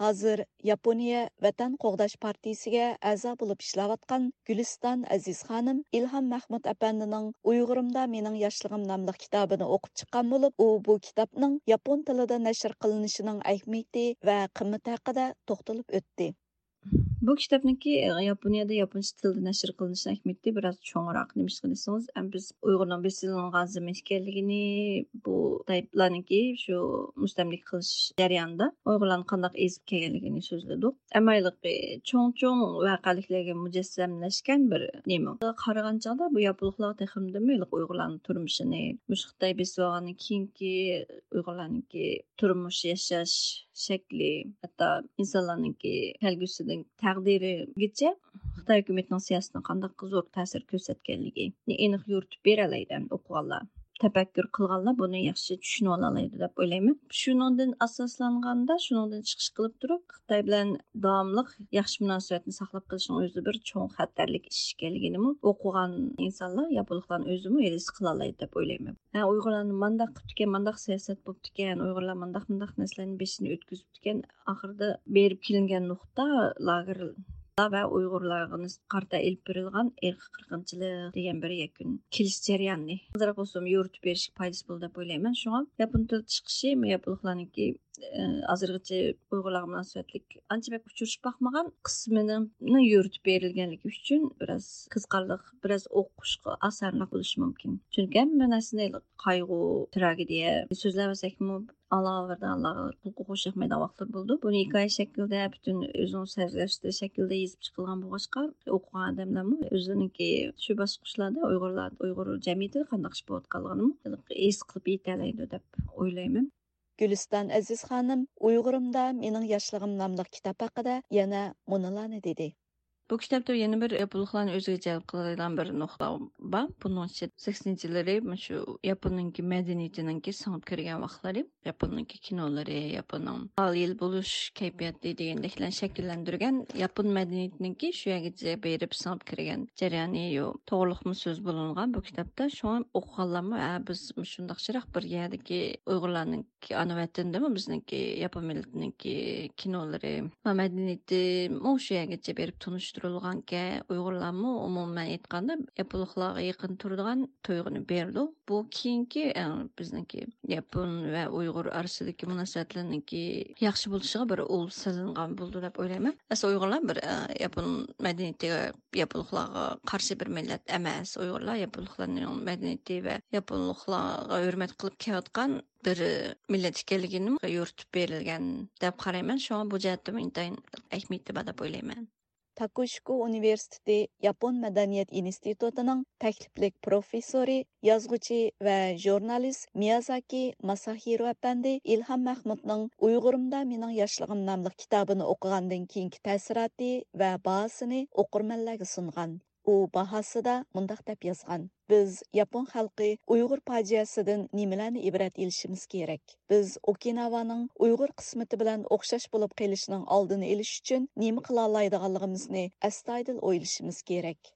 ھازىر ياپونىيە ۋەتەن قوغداش پارتىيىسىگە ئەزا بولۇپ ئىشلەۋاتقان گۈلىستان ئەزىز خانىم ئىلھام مەخمۇت ئەپەندىنىڭ ئۇيغۇرۇمدا مېنىڭ ياشلىقىم ناملىق كىتابىنى ئوقۇپ چىققان بولۇپ، ئۇ بۇ كىتابنىڭ ياپون تىلىدا نەشر قىلىنىشىنىڭ ئەھمىيىتى ۋە قىممىتى ھەققىدە توختىلىپ ئۆتتى. بۇ كىتابنىڭكى ياپونىيەدە ياپونچە تىلدا نەشر قىلىنىشىنىڭ ئەھمىيىتى بىراز چوڭراق. نېمىشقا دېسىڭىز، ئەم بىز ئۇيغۇرنىڭ بېسىلىنغان زېمىن ئىكەنلىكىنى، بۇ خىتايلارنىڭكى شۇ مۇستەملىكە قىلىش جەريانىدا ئۇيغۇرلارنى قانداق ئېزىپ كەلگەنلىكىنى سۆزلىدۇق. ئەمما ھېلىقى چوڭ چوڭ ۋەقەلىكلەرگە مۇجەسسەملەشكەن بىر نېمە. قارىغان چاغدا بۇ ياپونلۇقلار تېخىمۇ ھېلىقى ئۇيغۇرلارنىڭ تۇرمۇشىنى، مۇشۇ خىتاي بېسىۋالغاندىن كېيىنكى ئۇيغۇرلارنىڭكى تۇرمۇش، ياشاش شەكلى، ھەتتا ئىنسانلارنىڭكى كەلگۈسىنىڭ تەقدىرىگىچە خىتاي ھۆكۈمىتىنىڭ سىياسىتىنىڭ قانداق زور تەسىر كۆرسەتكەنلىكىنى ئېنىق يورۇتۇپ بېرەلەيدۇ ئوقۇغانلار. تەپەككۇر قىلغانلار بۇنى ياخشى چۈشىنىۋالالايدۇ دەپ ئويلايمەن. شۇنىڭدىن ئاساسلانغاندا، شۇنىڭدىن چىقىش قىلىپ تۇرۇپ، خىتاي بىلەن داۋاملىق ياخشى مۇناسىۋەتنى ساقلاپ قېلىشنىڭ ئۆزى بىر چوڭ خەتەرلىك ئىش ئىكەنلىكىنىمۇ ئوقۇغان ئىنسانلار، ياپونلۇقلارنىڭ ئۆزىمۇ ھېس قىلالايدۇ دەپ ئويلايمەن. ھە، ئۇيغۇرلارنى مانداق قىپتىكەن، مانداق سىياسەت بوپتىكەن، ئۇيغۇرلار مانداق، مانداق نەرسىلەرنى بېشىدىن ئۆتكۈزۈپتىكەن. ئاخىرىدا بېرىپ كېلىنگەن نۇقتا لاگېرلار ۋە ئۇيغۇرلارغا نىس-، قارىتا ئېلىپ بېرىلغان ئىرقىي قىرغىنچىلىق دېگەن بىر يەكۈن كېلىش جەريانى. ئازراق بولسىمۇ يورۇتۇپ بېرىشكە پايدىسى بولىدۇ دەپ ئويلايمەن. شۇڭا ياپون تىل چىقىشى ياپونلۇقلارنىڭكى ئى، ھازىرغىچە ئۇيغۇرلارغا مۇناسىۋەتلىك ئانچە بەك ئۇچرىشىپ باقمىغان قىسمىنىڭ يورۇتۇپ بېرىلگەنلىكى ئۈچۈن بىراز قىزىقارلىق، بىراز ئوقۇشقا ئاسانراق بولۇشى مۇمكىن. چۈنكى ھەممە نەرسىنى قايغۇ، تراگېدىيە سۆزلەۋەرسەكمۇ، ئاڭلىغانلاردا ئاڭلىغانلارغا قۇلىقى خۇش ياقمايدىغان ۋاقىتلار بولىدۇ. بۇنى ھېكايە شەكلىدە، پۈتۈن ئۆزىنىڭ سۆزلەشتۈرۈش شەكلىدە يېزىپ چىقىلغان بولغاچقا، ئوقۇغان ئادەملەرمۇ ئۆزلىرىنىڭكى شۇ باسقۇچلاردا ئۇيغۇرلار، ئۇيغۇر جەمئىيىتىدە قانداق ئىش بولۇۋاتقانلىقىنىمۇ ھېس قىلىپ يېتەلەيدۇ دەپ ئويلايمەن. گۈلىستان ئەزىز خانىم ئۇيغۇرۇمدا مېنىڭ ياشلىقىم ناملىق كىتاب ھەققىدە يەنە مۇنۇلارنى دېدى. بۇ كىتابتا يەنە بىر ياپونلۇقلارنى ئۆزىگە جەلپ قىلىدىغان بىر نۇقتا بار. بۇنىڭ ئىچىدە سەكسىنچى يىللىرى مۇشۇ ياپوننىڭكى مەدەنىيىتىنىڭكى سىڭىپ كىرگەن ۋاقىتلىرى، ياپوننىڭكى كىنولىرى، ياپوننىڭ ئالىي يىل بولۇش كەيپىياتى دېگەندەكلەرنى شەكىللەندۈرگەن ياپون مەدەنىيىتىنىڭكى شۇ يەرگىچە بېرىپ سىڭىپ كىرگەن جەريانى يو-، توغرىلىقمۇ سۆز بولۇنغان بۇ كىتابتا. شۇڭا ئوقۇغانلارمۇ، ھە، بىز مۇشۇنداق يىراق بىر يەردىكى ئۇيغۇرلارنىڭ ئانا ۋەتىنىدىمۇ بىزنىڭكى ياپون مىللىتىنىڭكى كىنولىرى ۋە مەدەنىيىتىمۇ شۇ يەرگىچە بېرىپ تونۇشتۇرۇلغانكەن، ئۇيغۇرلارمۇ ئومۇمەن ئېيتقاندا ياپونلۇقلارغا يېقىن تۇرىدىغان تۇيغۇنى بېرىدۇ. بۇ كېيىنكى، ئە، بىزنىڭكى ياپون ۋە ئۇيغۇر ئارىسىدىكى مۇناسىۋەتلەرنىڭكى ياخشى بولۇشىغا بىر ئۇل سېلىنغان بولىدۇ دەپ ئويلايمەن. ئەسلى ئۇيغۇرلار بىر، ئە، ياپون مەدەنىيىتىگە، ياپونلۇقلارغا قارشى بىر مىللەت ئەمەس. ئۇيغۇرلار ياپونلۇقلارنىڭ مەدەنىيىتى ۋە ياپونلۇقلارغا ھۆرمەت قىلىپ كېلىۋاتقان بىر مىللەت ئىكەنلىكىنى يورۇتۇپ بېرىلگەن دەپ قارايمەن. شۇڭا بۇ جەھەتتىمۇ ئىنتايىن ئەھمىيىتى بار دەپ ئويلايمەن. تاكوشىكو ئۇنىۋېرسىتېتى ياپون مەدەنىيەت ئىنستىتۇتىنىڭ تەكلىپلىك پروفېسسورى، يازغۇچى ۋە ژۇرنالىست مىيازاكى ماساھىرو ئەپەندى ئىلھام مەخمۇتنىڭ ئۇيغۇرۇمدا مېنىڭ ياشلىقىم ناملىق كىتابىنى ئوقۇغاندىن كېيىنكى تەسىراتى ۋە باھاسىنى ئوقۇرمەنلەرگە سۇنغان. ئۇ باھاسىدا مۇنداق دەپ يازغان: بىز ياپون خەلقى ئۇيغۇر پاجىئەسىدىن نېمىلەرنى ئىبرەت ئېلىشىمىز كېرەك؟ بىز ئوكىناۋانىڭ ئۇيغۇر قىسمىتى بىلەن ئوخشاش بولۇپ قېلىشىنىڭ ئالدىنى ئېلىش ئۈچۈن نېمە قىلالايدىغانلىقىمىزنى ئەستايىدىل ئويلىشىمىز كېرەك.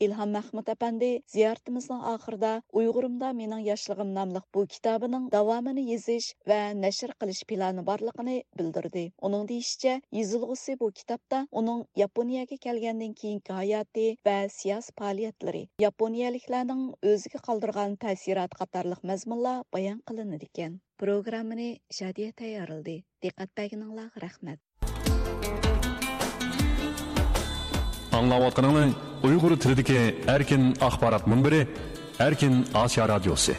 ئىلھام مەخمۇت ئەپەندى زىيارىتىمىزنىڭ ئاخىرىدا ئۇيغۇرۇمدا مېنىڭ ياشلىقىم ناملىق بۇ كىتابىنىڭ داۋامىنى يېزىش ۋە نەشر قىلىش پىلانى بارلىقىنى بىلدۈردى. ئۇنىڭ دېيىشىچە، يېزىلغۇسى بۇ كىتابتا ئۇنىڭ ياپونىيەگە كەلگەندىن كېيىنكى ھاياتى ۋە سىياسىي پائالىيەتلىرى، ياپونىيەلىكلەرنىڭ ئۆزىگە قالدۇرغان تەسىراتى قاتارلىق مەزمۇنلار بايان قىلىنىدىكەن. پروگراممىنى شادىيە تەييارلىدى. دىققەت بەرگىنىڭلارغا رەھمەت. ئاڭلاۋاتقىنىڭلار ئۇيغۇر تىلىدىكى ئەركىن ئاخبارات مۇنبىرى، ئەركىن ئاسىيا رادىيوسى.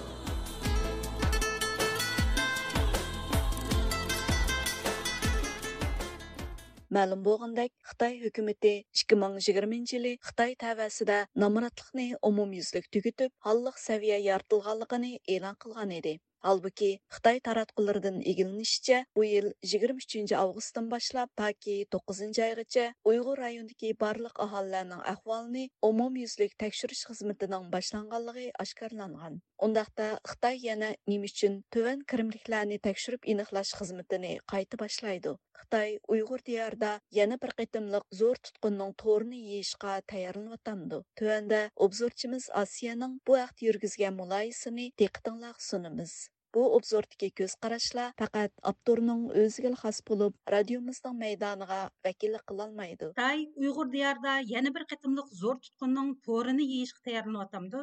مەلۇم بولغىنىدەك، خىتاي ھۆكۈمىتى ئىككى مىڭ يىگىرمىنچى يىلى خىتاي تەۋەسىدە نامراتلىقنى ئومۇميۈزلۈك تۈگىتىپ، ھاللىق سەۋىيە يارىتىلغانلىقىنى ئېلان قىلغان ئىدى. ھالبۇكى، خىتاي تاراتقۇلىرىدىن ئىگىلىنىشىچە، بۇ يىل يىگىرمە ئۈچىنچى ئاۋغۇستتىن باشلاپ تاكى توققۇزىنچى ئايغىچە ئۇيغۇر رايونىدىكى بارلىق ئاھالىلەرنىڭ ئەھۋالىنى ئومۇميۈزلۈك تەكشۈرۈش خىزمىتىنىڭ باشلانغانلىقى ئاشكارىلانغان. ئۇنداقتا، خىتاي يەنە نېمە ئۈچۈن تۆۋەن كىرىملىكلەرنى تەكشۈرۈپ ئېنىقلاش خىزمىتىنى قايتا باشلايدۇ؟ خىتاي ئۇيغۇر دىيارىدا يەنە بىر قېتىملىق زور تۇتقۇننىڭ تورىنى يېيىشقا تەييارلىنىۋاتامدۇ؟ تۆۋەندە ئوبزورچىمىز ئاسىيەنىڭ بۇ ھەقتە يۈرگۈزگەن مۇلاھىزىسىنى دىققىتىڭلارغا سۇنىمىز. بۇ ئوبزوردىكى كۆز قاراشلار پەقەت ئاپتورنىڭ ئۆزىگىلا خاس بولۇپ، رادىيومىزنىڭ مەيدانىغا ۋەكىللىك قىلالمايدۇ. خىتاي ئۇيغۇر دىيارىدا يەنە بىر قېتىملىق زور تۇتقۇننىڭ تورىنى يېيىشقا تەييارلىنىۋاتامدۇ؟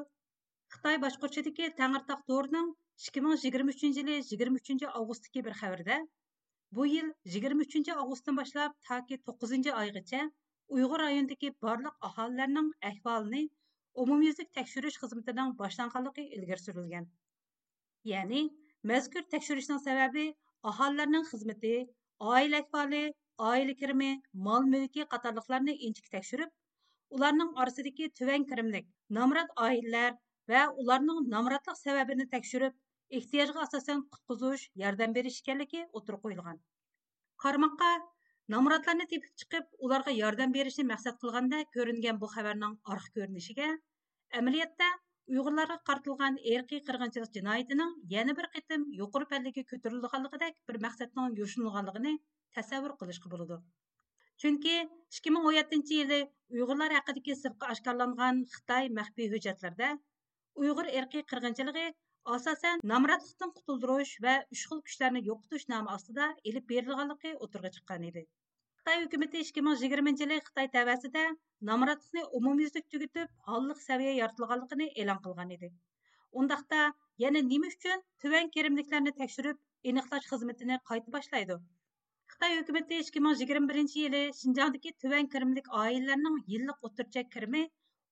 خىتاي باشقۇرۇشىدىكى تەڭرىتاغ تورىنىڭ ئىككى مىڭ يىگىرمە ئۈچىنچى يىلى يىگىرمە ئۈچىنچى ئاۋغۇستتىكى بىر خەۋىرىدە، بۇ يىل يىگىرمە ئۈچىنچى ئاۋغۇستتىن باشلاپ تاكى توققۇزىنچى ئايغىچە ئۇيغۇر رايونىدىكى بارلىق ئاھالىلەرنىڭ ئەھۋالىنى ئومۇميۈزلۈك تەكشۈرۈش خىزمىتىنىڭ باشلانغانلىقى ئىلگىرى سۈرۈلگەن. يەنى، مەزكۇر تەكشۈرۈشنىڭ سەۋەبى ئاھالىلەرنىڭ خىزمىتى، ئائىلە ئەھۋالى، ئائىلە كىرىمى، مال مۈلكى قاتارلىقلارنى ئىنچىكە تەكشۈرۈپ، ئۇلارنىڭ ئارىسىدىكى تۆۋەن كىرىملىك، نامرات ئائىلىلەر ۋە ئۇلارنىڭ نامراتلىق سەۋەبىنى تەكشۈرۈپ، ئېھتىياجغا ئاساسەن قۇتقۇزۇش، ياردەم بېرىش ئىكەنلىكى ئوتتۇرىغا قويۇلغان. قارىماققا، نامراتلارنى تېپىپ چىقىپ، ئۇلارغا ياردەم بېرىشنى مەقسەت قىلغاندەك كۆرۈنگەن بۇ خەۋەرنىڭ ئارقا كۆرۈنۈشىگە، ئەمەلىيەتتە ئۇيغۇرلارغا قارىتىلغان ئىرقىي قىرغىنچىلىق جىنايىتىنىڭ يەنە بىر قېتىم يۇقىرى پەللىگە كۆتۈرۈلىدىغانلىقىدەك بىر مەقسەتنىڭ يوشۇرۇنغانلىقىنى تەسەۋۋۇر قىلىشقا بولىدۇ. چۈنكى ئىككى مىڭ ئون يەتتىنچى يىلى ئۇيغۇرلار ھەققىدىكى سىرتقا ئاشكارىلانغان خىتاي مەخپىي ھۆججەتلىرىدە ئۇيغۇر ئىرقىي قىرغىنچىلىقى ئاساسەن نامراتلىقتىن قۇتۇلدۇرۇش ۋە ئۈچ خىل كۈچلەرنى يوقىتىش نامى ئاستىدا ئېلىپ بېرىلغانلىقى ئوتتۇرىغا چىققان ئىدى. خىتاي ھۆكۈمىتى ئىككى مىڭ يىگىرمىنچى يىلى خىتاي تەۋەسىدە نامراتلىقنى ئومۇميۈزلۈك تۈگىتىپ، ھاللىق سەۋىيە يارىتىلغانلىقىنى ئېلان قىلغان ئىدى. ئۇنداقتا، يەنە نېمە ئۈچۈن تۆۋەن كىرىملىكلەرنى تەكشۈرۈپ ئېنىقلاش خىزمىتىنى قايتا باشلايدۇ؟ خىتاي ھۆكۈمىتى ئىككى مىڭ يىگىرمە بىرىنچى يىلى شىنجاڭدىكى تۆۋەن كىرىملىك ئائىلىلەرنىڭ يىللىق ئوتتۇرىچە كىرىمى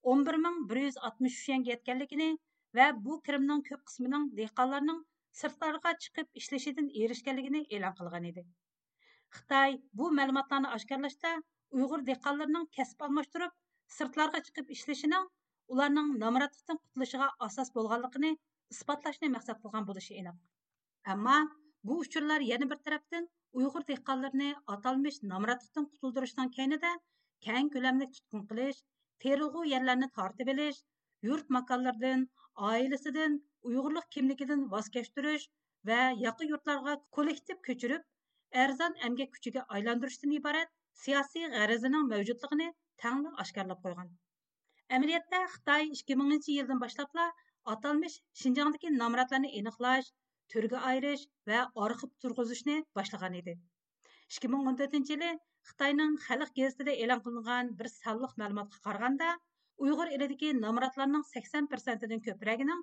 ئون بىر مىڭ بىر يۈز ئاتمىش ئۈچ يۈەنگە يەتكەنلىكىنى ۋە بۇ كىرىمنىڭ كۆپ قىسمىنىڭ دېھقانلارنىڭ سىرتلارغا چىقىپ ئىشلىشىدىن ئېرىشكەنلىكىنى ئېلان قىلغان ئىدى. خىتاي بۇ مەلۇماتلارنى ئاشكارىلاشتا ئۇيغۇر دېھقانلىرىنىڭ كەسىپ ئالماشتۇرۇپ، سىرتلارغا چىقىپ ئىشلىشىنىڭ ئۇلارنىڭ نامراتلىقتىن قۇتۇلۇشىغا ئاساس بولغانلىقىنى ئىسپاتلاشنى مەقسەت قىلغان بولۇشى ئېنىق. ئەمما بۇ ئۇچۇرلار يەنە بىر تەرەپتىن ئۇيغۇر دېھقانلىرىنى ئاتالمىش نامراتلىقتىن قۇتۇلدۇرۇشنىڭ كەينىدە كەڭ كۆلەملىك تۇتقۇن قىلىش، تېرىلغۇ يەرلەرنى تارتىۋېلىش، يۇرت ماكانلىرىدىن، ئائىلىسىدىن، ئۇيغۇرلۇق كىملىكىدىن ۋاز كەچتۈرۈش ۋە ياقا يۇرتلارغا كوللېكتىپ كۆچۈرۈپ، ئەرزان ئەمگەك كۈچىگە ئايلاندۇرۇشتىن ئىبارەت سىياسىي غەرىزىنىڭ مەۋجۇتلۇقىنى تەڭلا ئاشكارىلاپ قويغان. ئەمەلىيەتتە، خىتاي ئىككى مىڭىنچى يىلدىن باشلاپلا ئاتالمىش شىنجاڭدىكى نامراتلارنى ئېنىقلاش، تۈرگە ئايرىش ۋە ئارخىپ تۇرغۇزۇشنى باشلىغان ئىدى. ئىككى مىڭ ئون تۆتىنچى يىلى خىتاينىڭ خەلق گېزىتىدە ئېلان قىلىنغان بىر سانلىق مەلۇماتقا قارىغاندا، ئۇيغۇر ئېلىدىكى نامراتلارنىڭ سەكسەن پىرسەنتىدىن كۆپرەكىنىڭ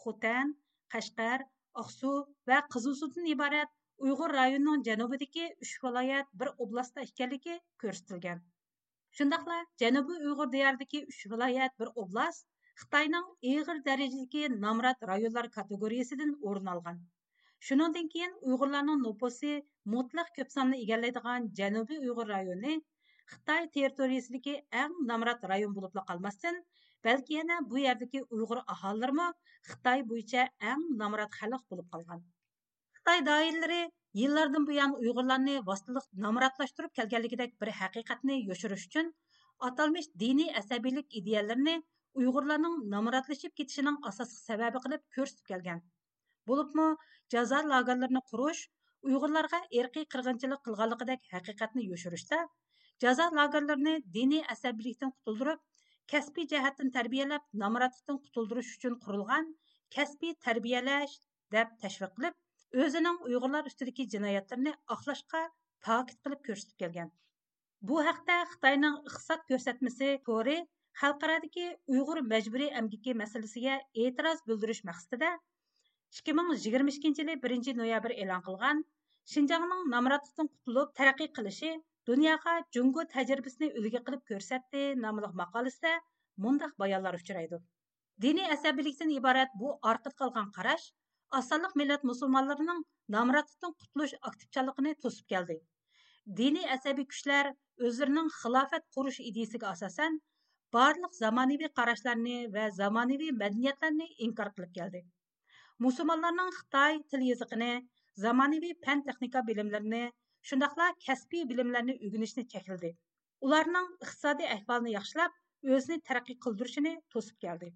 خوتەن، قەشقەر، ئاقسۇ ۋە قىزىلسۇدىن ئىبارەت ئۇيغۇر رايونىنىڭ جەنۇبىدىكى ئۈچ ۋىلايەت بىر ئوبلاستتا ئىكەنلىكى كۆرسىتىلگەن. شۇنداقلا جەنۇبىي ئۇيغۇر دىيارىدىكى ئۈچ ۋىلايەت بىر ئوبلاست خىتاينىڭ ئېغىر دەرىجىدىكى نامرات رايونلار كاتېگورىيىسىدىن ئورۇن ئالغان. شۇنىڭدىن كېيىن ئۇيغۇرلارنىڭ نوپۇسى مۇتلەق كۆپ ساننى ئىگىلەيدىغان جەنۇبىي ئۇيغۇر رايونى خىتاي تېررىتورىيىسىدىكى ئەڭ نامرات رايون بولۇپلا قالماستىن، بەلكى يەنە بۇ يەردىكى ئۇيغۇر ئاھالىلىرىمۇ خىتاي بويىچە ئەڭ نامرات خەلق بولۇپ قالغان. خىتاي دائىرىلىرى يىللاردىن بۇيان ئۇيغۇرلارنى ۋاسىتىلىق نامراتلاشتۇرۇپ كەلگەنلىكىدەك بىر ھەقىقەتنى يوشۇرۇش ئۈچۈن، ئاتالمىش دىنىي ئەسەبىيلىك ئىدىيەلىرىنى ئۇيغۇرلارنىڭ نامراتلىشىپ كېتىشىنىڭ ئاساسلىق سەۋەبى قىلىپ كۆرسىتىپ كەلگەن. بولۇپمۇ جازا لاگېرلىرىنى قۇرۇش، ئۇيغۇرلارغا ئىرقىي قىرغىنچىلىق قىلغانلىقىدەك ھەقىقەتنى يوشۇرۇشتا، جازا لاگېرلىرىنى دىنىي ئەسەبىيلىكتىن قۇتۇلدۇرۇپ، كەسپىي جەھەتتىن تەربىيەلەپ، نامراتلىقتىن قۇتۇلدۇرۇش ئۈچۈن قۇرۇلغان كەسپىي تەربىيەلەش، دەپ تەشۋىق قىلىپ، ئۆزىنىڭ ئۇيغۇرلار ئۈستىدىكى جىنايەتلىرىنى ئاقلاشقا پاكىت قىلىپ كۆرسىتىپ كەلگەن. بۇ ھەقتە خىتاينىڭ ئىقتىساد كۆرسەتمىسى تورى خەلقئارادىكى ئۇيغۇر مەجبۇرىي ئەمگىكى مەسىلىسىگە ئېتىراز بىلدۈرۈش مەقسىتىدە، ئىككى مىڭ يىگىرمە ئىككىنچى يىلى بىرىنچى نويابىر ئېلان قىلغان شىنجاڭنىڭ نامراتلىقتىن قۇتۇلۇپ تەرەققىي قىلىشى دۇنياغا جۇڭگو تەجرىبىسىنى ئۈلگە قىلىپ كۆرسەتتى ناملىق ماقالىسىدە مۇنداق بايانلار ئۇچرايدۇ. دىنىي ئەسەبىيلىكتىن ئىبارەت بۇ ئارقىدا قالغان قاراش ئاز سانلىق مىللەت مۇسۇلمانلىرىنىڭ نامراتلىقتىن قۇتۇلۇش ئاكتىپچانلىقىنى توسۇپ كەلدى. دىنىي ئەسەبىي كۈچلەر ئۆزلىرىنىڭ خىلاپەت قۇرۇش ئىدىيىسىگە ئاساسەن، بارلىق زامانىۋى قاراشلارنى ۋە زامانىۋى مەدەنىيەتلەرنى ئىنكار قىلىپ كەلدى. مۇسۇلمانلارنىڭ خىتاي تىل يېزىقىنى، زامانىۋى پەن تېخنىكا بىلىملىرىنى، شۇنداقلا كەسپىي بىلىملەرنى ئۆگىنىشنى چەكلىدى. ئۇلارنىڭ ئىقتىسادىي ئەھۋالىنى ياخشىلاپ، ئۆزىنى تەرەققىي قىلدۇرۇشىنى توسۇپ كەلدى.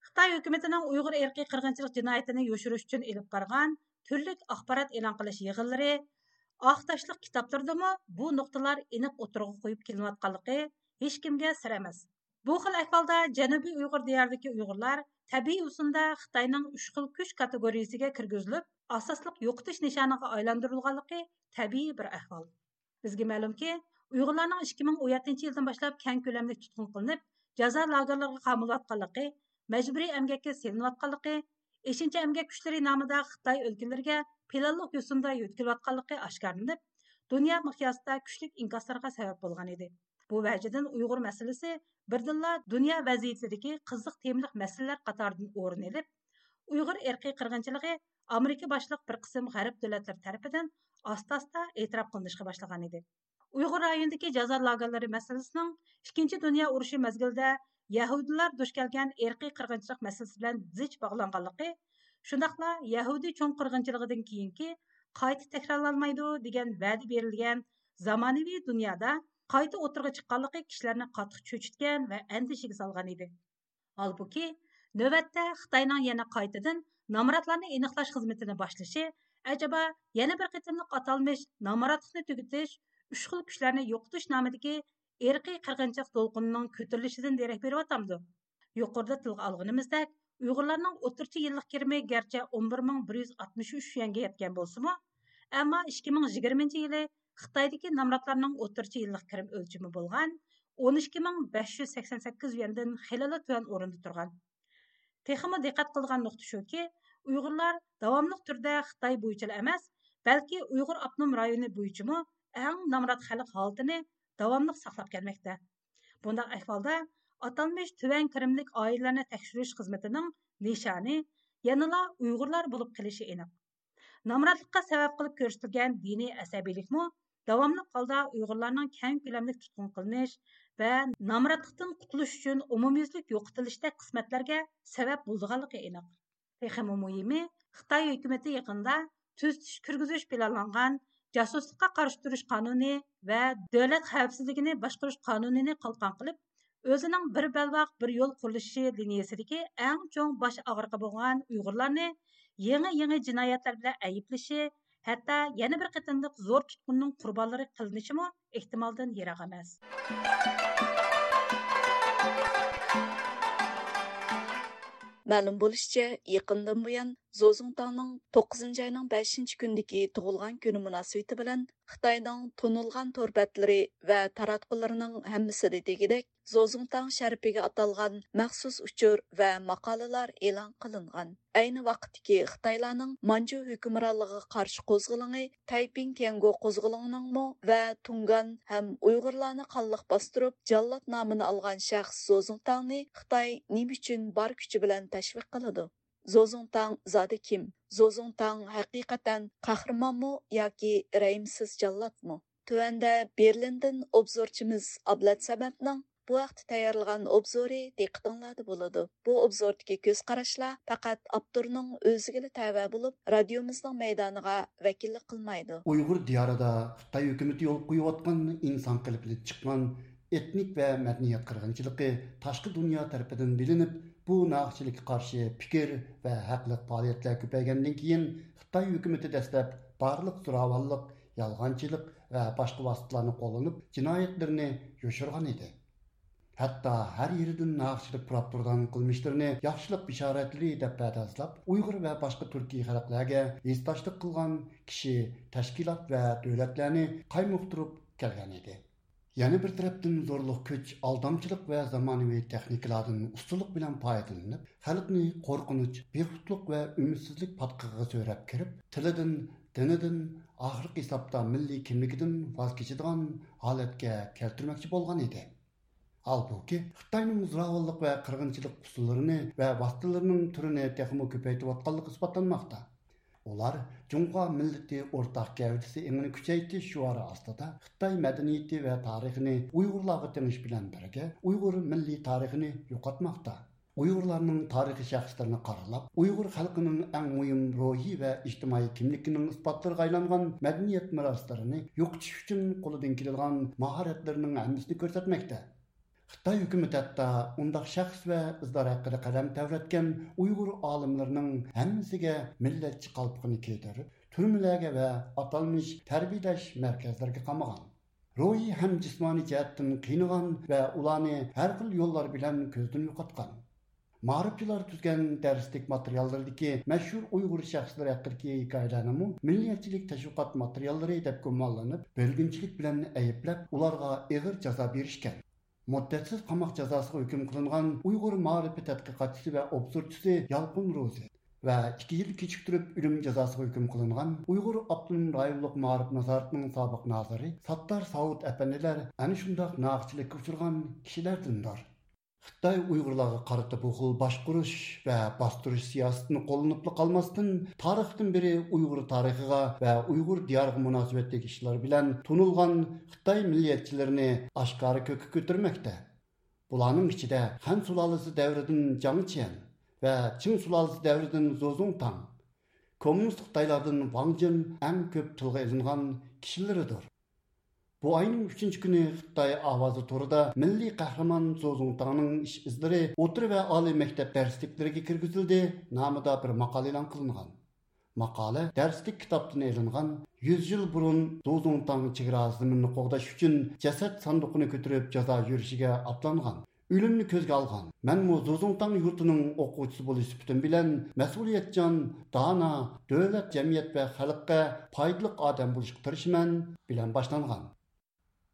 خىتاي ھۆكۈمىتىنىڭ ئۇيغۇر ئىرقىي قىرغىنچىلىق جىنايىتىنى يوشۇرۇش ئۈچۈن ئېلىپ بارغان تۈرلۈك ئاخبارات ئېلان قىلىش يىغىنلىرى، ئاق تاشلىق كىتابلىرىدىمۇ بۇ نۇقتىلار ئېنىق ئوتتۇرىغا قويۇپ كېلىنىۋاتقانلىقى ھېچكىمگە سىر ئەمەس. بۇ خىل ئەھۋالدا جەنۇبىي ئۇيغۇر دىيارىدىكى ئۇيغۇرلار تەبىئىي ئۇسۇلدا خىتاينىڭ ئۈچ خىل كۈچ كاتېگورىيىسىگە كىرگۈزۈلۈپ، ئاساسلىق يوقىتىش نىشانىغا ئايلاندۇرۇلغانلىقى تەبىئىي بىر ئەھۋال. بىزگە مەلۇمكى، ئۇيغۇرلارنىڭ ئىككى مىڭ ئون يەتتىنچى يىلدىن باشلاپ كەڭ كۆلەملىك تۇتقۇن قىلىنىپ، جازا لاگېرلىرىغا قامىلىۋاتقانلىقى، مەجبۇرىي ئەمگەككە سېلىنىۋاتقانلىقى، ئېشىنچا ئەمگەك كۈچلىرى نامىدا خىتاي ئۆلكىلىرىگە پىلانلىق يوسۇندا يۆتكىلىۋاتقانلىقى ئاشكارىلىنىپ، دۇنيا مىقياسىدا كۈچلۈك ئىنكاسلارغا سەۋەب بولغان ئىدى. بۇ ۋەجىدىن ئۇيغۇر مەسىلىسى بىردىنلا دۇنيا ۋەزىيىتىدىكى قىزىق تېمىلىق مەسىلىلەر قاتارىدىن ئورۇن ئېلىپ، ئۇيغۇر ئىرقىي قىرغىنچىلىقى ئامېرىكا باشلىق بىر قىسىم غەرب دۆلەتلىرى تەرىپىدىن ئاستا-ئاستا ئېتىراپ قىلىنىشقا باشلىغان ئىدى. ئۇيغۇر رايونىدىكى جازا لاگېرلىرى مەسىلىسىنىڭ ئىككىنچى دۇنيا ئۇرۇشى مەزگىلىدە يەھۇدىيلار دۇچ كەلگەن ئىرقىي قىرغىنچىلىق مەسىلىسى بىلەن زىچ باغلانغانلىقى، شۇنداقلا يەھۇدىي چوڭ قىرغىنچىلىقىدىن كېيىنكى قايتا تەكرارلانمايدۇ دېگەن ۋەدە بېرىلگەن زامانىۋى دۇنيادا قايتا ئوتتۇرىغا چىققانلىقى كىشىلەرنى قاتتىق چۆچۈتكەن ۋە ئەندىشىگە سالغان ئىدى. ھالبۇكى، نۆۋەتتە خىتاينىڭ يەنە قايتىدىن نامراتلارنى ئېنىقلاش خىزمىتىنى باشلىشى، ئەجەبا، يەنە بىر قېتىملىق ئاتالمىش نامراتلىقنى تۈگىتىش، ئۈچ خىل كۈچلەرنى يوقىتىش نامىدىكى ئىرقىي قىرغىنچىلىق دولقۇنىنىڭ كۆتۈرۈلۈشىدىن دېرەك بېرىۋاتامدۇ؟ يۇقىرىدا تىلغا ئالغىنىمىزدەك، ئۇيغۇرلارنىڭ ئوتتۇرىچە يىللىق كىرىمى گەرچە ئون بىر مىڭ بىر يۈز ئاتمىش ئۈچ يۈەنگە يەتكەن بولسىمۇ، ئەمما ئىككى مىڭ يىگىرمىنچى يىلى خىتايدىكى نامراتلارنىڭ ئوتتۇرىچە يىللىق كىرىم ئۆلچىمى بولغان ئون ئىككى مىڭ بەش يۈز سەكسەن سەككىز يۈەندىن خېلىلا تۆۋەن ئورۇندا تۇرغان. تېخىمۇ دىققەت قىلىدىغان نۇقتا شۇكى، ئۇيغۇرلار داۋاملىق تۈردە خىتاي بويىچىلا ئەمەس، بەلكى ئۇيغۇر ئاپتونوم رايونى بويىچىمۇ ئەڭ نامرات خەلق ھالىتىنى داۋاملىق ساقلاپ كەلمەكتە. بۇنداق ئەھۋالدا ئاتالمىش تۆۋەن كىرىملىك ئائىلىلەرنى تەكشۈرۈش خىزمىتىنىڭ نىشانى يەنىلا ئۇيغۇرلار بولۇپ قېلىشى ئېنىق. نامراتلىققا سەۋەب قىلىپ كۆرسىتىلگەن دىنىي ئەسەبىيلىكمۇ داۋاملىق ھالدا ئۇيغۇرلارنىڭ كەڭ كۆلەملىك تۇتقۇن قىلىنىش ۋە نامراتلىقتىن قۇتۇلۇش ئۈچۈن ئومۇميۈزلۈك يوقىتىلىشتەك قىسمەتلەرگە سەۋەب بولىدىغانلىقى ئېنىق. تېخىمۇ مۇھىمى، خىتاي ھۆكۈمىتى يېقىندا تۈزىتىش كىرگۈزۈش پىلانلانغان جاسۇسلۇققا قارشى تۇرۇش قانۇنى ۋە دۆلەت خەۋپسىزلىكىنى باشقۇرۇش قانۇنىنى قالقان قىلىپ، ئۆزىنىڭ بىر بەلباغ، بىر يول قۇرۇلۇشى لىنىيەسىدىكى ئەڭ چوڭ باش ئاغرىقى بولغان ئۇيغۇرلارنى يېڭى-يېڭى جىنايەتلەر بىلەن ئەيىبلىشى، ھەتتا يەنە بىر قېتىملىق زور تۇتقۇننىڭ قۇربانلىرى قىلىنىشىمۇ ئېھتىمالدىن يىراق ئەمەس. مەلۇم بولۇشىچە، يېقىندىن بۇيان زوزۇڭتاڭنىڭ توققۇزىنچى ئاينىڭ بەشىنچى كۈنىدىكى تۇغۇلغان كۈنى مۇناسىۋىتى بىلەن خىتاينىڭ تونۇلغان تور بەتلىرى ۋە تاراتقۇلىرىنىڭ ھەممىسىدە دېگۈدەك زوزۇڭتاڭ شەرىپىگە ئاتالغان مەخسۇس ئۇچۇر ۋە ماقالىلەر ئېلان قىلىنغان. ئەينى ۋاقىتتىكى خىتايلارنىڭ مانجۇ ھۆكۈمرانلىقىغا قارشى قوزغىلىڭى، تەيپىڭ تيەنگو قوزغىلىڭىنىڭمۇ ۋە تۇڭگان ھەم ئۇيغۇرلارنى قانلىق باستۇرۇپ، جاللات نامىنى ئالغان شەخس زوزۇڭتاڭنى خىتاي نېمە ئۈچۈن بار كۈچى بىلەن تەشۋىق قىلىدۇ؟ زوزۇڭتاڭ زادى كىم؟ زوزۇڭتاڭ ھەقىقەتەن قەھرىمانمۇ ياكى رەھىمسىز جاللاتمۇ؟ تۆۋەندە بېرلىندىن ئوبزورچىمىز ئابلەت سەمەتنىڭ بۇ ھەقتە تەييارلىغان ئوبزورى دىققىتىڭلاردا بولىدۇ. بۇ ئوبزوردىكى كۆز قاراشلار پەقەت ئاپتورنىڭ ئۆزىگىلا تەۋە بولۇپ، رادىيومىزنىڭ مەيدانىغا ۋەكىللىك قىلمايدۇ. ئۇيغۇر دىيارىدا خىتاي ھۆكۈمىتى يولغا قويۇۋاتقان ئىنسان قېلىپىدىن چىققان ئېتنىك ۋە مەدەنىيەت قىرغىنچىلىقى تاشقى دۇنيا تەرىپىدىن بىلىنىپ، بۇ ناھەقچىلىككە قارشى پىكىر ۋە ھەقلىق پائالىيەتلەر كۆپەيگەندىن كېيىن، خىتاي ھۆكۈمىتى دەسلەپ بارلىق زوراۋانلىق، يالغانچىلىق ۋە باشقا ۋاسىتىلارنى قوللىنىپ، جىنايەتلىرىنى يوشۇرغان ئىدى. ھەتتا ھەر يېرىدىن ناھەقچىلىك پۇراپ تۇرىدىغان قىلمىشلىرىنى ياخشىلىق بېشارەتلىرى دەپ پەردازلاپ، ئۇيغۇر ۋە باشقا تۈركىي خەلقلەرگە ھېسداشلىق قىلغان كىشى، تەشكىلات ۋە دۆلەتلەرنى قايمۇقتۇرۇپ كەلگەن ئىدى. يەنە بىر تەرەپتىن، زورلۇق كۈچ، ئالدامچىلىق ۋە زامانىۋى تېخنىكىلاردىن ئۇستىلىق بىلەن پايدىلىنىپ، خەلقنى قورقۇنچ، بىخۇدلۇق ۋە ئۈمىدسىزلىك پاتقىقىغا سۆرەپ كىرىپ، تىلىدىن، دىنىدىن، ئاخىرقى ھېسابتا مىللىي كىملىكىدىن ۋاز كېچىدىغان ھالەتكە كەلتۈرمەكچى بولغان ئىدى. ھالبۇكى، خىتاينىڭ زوراۋانلىق ۋە قىرغىنچىلىق ئۇسۇللىرىنى ۋە ۋاسىتىلىرىنىڭ تۈرىنى تېخىمۇ كۆپەيتىۋاتقانلىقى ئىسپاتلانماقتا. ئۇلار جۇڭخۇا مىللىتى ئورتاق گەۋدىسى ئېڭىنى كۈچەيتىش شوئارى ئاستىدا خىتاي مەدەنىيىتى ۋە تارىخىنى ئۇيغۇرلارغا تېڭىش بىلەن بىرگە، ئۇيغۇر مىللىي تارىخىنى يوقاتماقتا. ئۇيغۇرلارنىڭ تارىخىي شەخسلىرىنى قارىلاپ، ئۇيغۇر خەلقىنىڭ ئەڭ مۇھىم روھىي ۋە ئىجتىمائىي كىملىكىنىڭ ئىسپاتلىرىغا ئايلانغان مەدەنىيەت مىراسلىرىنى يوقىتىش ئۈچۈن قولىدىن كېلىدىغان ماھارەتلىرىنىڭ ھەممىسىنى كۆرسەتمەكتە. خىتاي ھۆكۈمىتى ھەتتا ئۇنداق شەخس ۋە ئىزلار ھەققىدە قەلەم تەۋرەتكەن ئۇيغۇر ئالىملىرىنىڭ ھەممىسىگە مىللەتچى قالپىقىنى كىيدۈرۈپ، تۈرمىلەرگە ۋە ئاتالمىش تەربىيەلەش مەركەزلىرىگە قامىغان. روھىي ھەم جىسمانىي جەھەتتىن قىينىغان ۋە ئۇلارنى ھەر خىل يوللار بىلەن كۆزدىن يوقاتقان. مائارىپچىلار تۈزگەن دەرسلىك ماتېرىياللىرىدىكى مەشھۇر ئۇيغۇر شەخسلىرى ھەققىدىكى ھېكايىلەرنىمۇ مىللەتچىلىك تەشۋىقات ماتېرىياللىرى دەپ گۇمانلىنىپ، بۆلگۈنچىلىك بىلەن ئەيىبلەپ، ئۇلارغا ئېغىر جازا بېرىشكەن. مۇددەتسىز قاماق جازاسىغا ھۆكۈم قىلىنغان ئۇيغۇر مائارىپى تەتقىقاتچىسى ۋە ئوبزورچىسى يالقۇن روزى ۋە ئىككى يىل كېچىكتۈرۈپ ئۆلۈم جازاسىغا ھۆكۈم قىلىنغان ئۇيغۇر ئاپتونوم رايونلۇق مائارىپ نازارىتىنىڭ سابىق نازىرى ساتتار ساۋۇت ئەپەندىلەر ئەنە شۇنداق ناھەقچىلىككە ئۇچرىغان كىشىلەردىندۇر. خىتاي ئۇيغۇرلارغا قارىتا بۇ خىل باشقۇرۇش ۋە باستۇرۇش سىياسىتىنى قوللىنىپلا قالماستىن، تارىختىن بېرى ئۇيغۇر تارىخىغا ۋە ئۇيغۇر دىيارىغا مۇناسىۋەتلىك ئىشلار بىلەن تونۇلغان خىتاي مىللىيەتچىلىرىنى ئاشكارا كۆككە كۆتۈرمەكتە. بۇلارنىڭ ئىچىدە خەن سۇلالىسى دەۋرىدىن جاڭ چيەن ۋە چىڭ سۇلالىسى دەۋرىدىن زوزۇڭتاڭ، كوممۇنىست خىتايلاردىن ۋاڭ جىن ئەڭ كۆپ تىلغا ئېلىنغان كىشىلىرىدۇر. بۇ ئاينىڭ ئۈچىنچى كۈنى خىتاي ئاۋازى تورىدا مىللىي قەھرىمان زوزۇڭتاڭنىڭ ئىش ئىزلىرى ئوتتۇرا ۋە ئالىي مەكتەپ دەرسلىكلىرىگە كىرگۈزۈلدى نامىدا بىر ماقالە ئېلان قىلىنغان. ماقالە دەرسلىك كىتابتىن ئېلىنغان، يۈز يىل بۇرۇن زوزۇڭتاڭ چېگرا زېمىنىنى قوغداش ئۈچۈن جەسەت ساندۇقىنى كۆتۈرۈپ جازا يۈرۈشىگە ئاتلانغان. ئۆلۈمنى كۆزگە ئالغان. مەنمۇ زوزۇڭتاڭ يۇرتىنىڭ ئوقۇغۇچىسى بولۇش سۈپىتىم بىلەن مەسئۇلىيەتچان، دانا، دۆلەت، جەمئىيەت ۋە خەلققە پايدىلىق ئادەم بولۇشقا تىرىشىمەن بىلەن باشلانغان.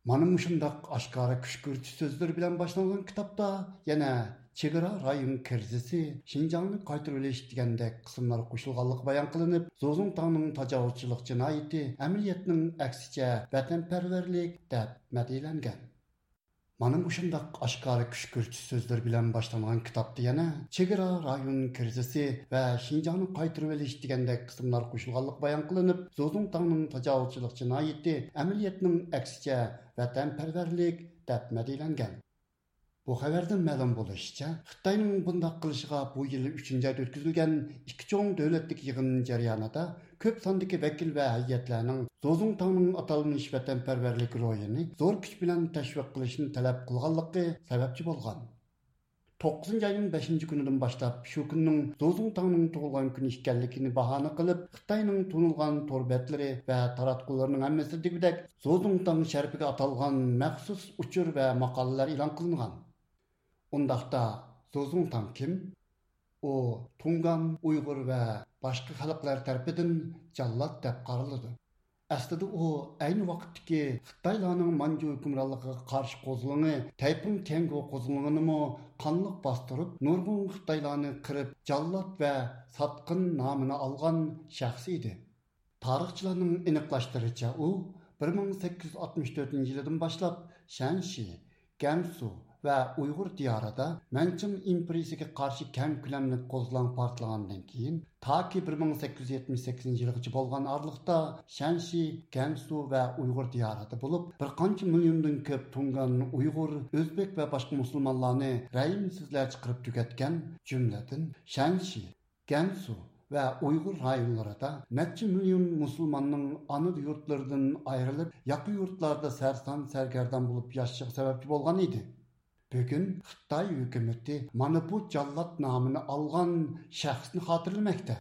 مانا مۇشۇنداق ئاشكارا كۈشكۈرتۈش سۆزلىرى بىلەن باشلانغان كىتابتا يەنە چېگرا رايون كىرىزىسى، شىنجاڭنى قايتۇرۇۋېلىش دېگەندەك قىسىملار قوشۇلغانلىقى بايان قىلىنىپ، زوزۇڭتاڭنىڭ تاجاۋۇزچىلىق جىنايىتى ئەمەلىيەتنىڭ ئەكسىچە ۋەتەنپەرۋەرلىك دەپ مەدھىيەلەنگەن. مانا مۇشۇنداق ئاشكارا كۈشكۈرتۈش سۆزلىرى بىلەن باشلانغان كىتابتا يەنە چېگرا رايون كىرىزىسى ۋە شىنجاڭنى قايتۇرۇۋېلىش دېگەندەك قىسىملار قوشۇلغانلىقى بايان قىلىنىپ، زوزۇڭتاڭنىڭ تاجاۋۇزچىلىق جىنايىتى ئەمەلىيەتنىڭ ئەكسىچە ۋەتەنپەرۋەرلىك دەپ مەدھىيەلەنگەن. بۇ خەۋەردىن مەلۇم بولۇشىچە، خىتاينىڭ بۇنداق قىلىشىغا بۇ يىل ئۈچىنچى ئايدا ئۆتكۈزۈلگەن ئىككى چوڭ دۆلەتلىك يىغىن جەريانىدا كۆپ ساندىكى ۋەكىل ۋە ھەيئەتلەرنىڭ زوزۇڭتاڭنىڭ ئاتالمىش ۋەتەنپەرۋەرلىك روھىنى زور كۈچ بىلەن تەشۋىق قىلىشنى تەلەپ قىلغانلىقى سەۋەبچى بولغان. توققۇزىنچى ئاينىڭ بەشىنچى كۈنىدىن باشلاپ شۇ كۈننىڭ زوزۇڭتاڭنىڭ تۇغۇلغان كۈنى ئىكەنلىكىنى باھانە قىلىپ، خىتاينىڭ تونۇلغان تور بەتلىرى ۋە تاراتقۇلىرىنىڭ ھەممىسىدىكىدەك زوزۇڭتاڭ شەرىپىگە ئاتالغان مەخسۇس ئۇچۇر ۋە ماقالىلەر ئېلان قىلىنغان. ئۇنداقتا، زوزۇڭتاڭ كىم؟ ئۇ تۇڭگان، ئۇيغۇر ۋە باشقا خەلقلەر تەرىپىدىن جاللات دەپ قارىلىدۇ. ئەسلىدە ئۇ ئەينى ۋاقىتتىكى خىتايلارنىڭ مانجۇ ھۆكۈمرانلىقىغا قارشى قوزغىلىڭى تەيپۇڭ تيەنگو قوزغىلىڭىنىمۇ قانلىق باستۇرۇپ، نۇرغۇن خىتايلارنى قىرىپ، جاللات ۋە ساتقىن نامىنى ئالغان شەخس ئىدى. تارىخچىلارنىڭ ئېنىقلاشتۇرۇشىچە، ئۇ بىر مىڭ سەككىز يۈز ئاتمىش تۆتىنچى يىلىدىن باشلاپ شەنشى، گەنسۇ ۋە ئۇيغۇر دىيارىدا مەنچىڭ ئىمپېرىيىسىگە قارشى كەڭ كۆلەملىك قوزغىلاڭ پارتلىغاندىن كېيىن، تاكى بىر مىڭ سەككىز يۈز يەتمىش سەككىزىنچى يىلغىچە بولغان ئارىلىقتا شەنشى، گەنسۇ ۋە ئۇيغۇر دىيارىدا بولۇپ، بىر قانچە مىليوندىن كۆپ تۇڭگان، ئۇيغۇر، ئۆزبېك ۋە باشقا مۇسۇلمانلارنى رەھىمسىزلەرچە قىرىپ تۈگەتكەن، جۈملىدىن شەنشى، گەنسۇ ۋە ئۇيغۇر رايونلىرىدا نەچچە مىليون مۇسۇلماننىڭ ئانا يۇرتلىرىدىن ئايرىلىپ، ياقا يۇرتلاردا سەرسان-سەرگەردان بولۇپ ياشىشىغا سەۋەبچى بولغان ئىدى. بۈگۈن خىتاي ھۆكۈمىتى مانا بۇ جاللات نامىنى ئالغان شەخسنى خاتىرىلىمەكتە.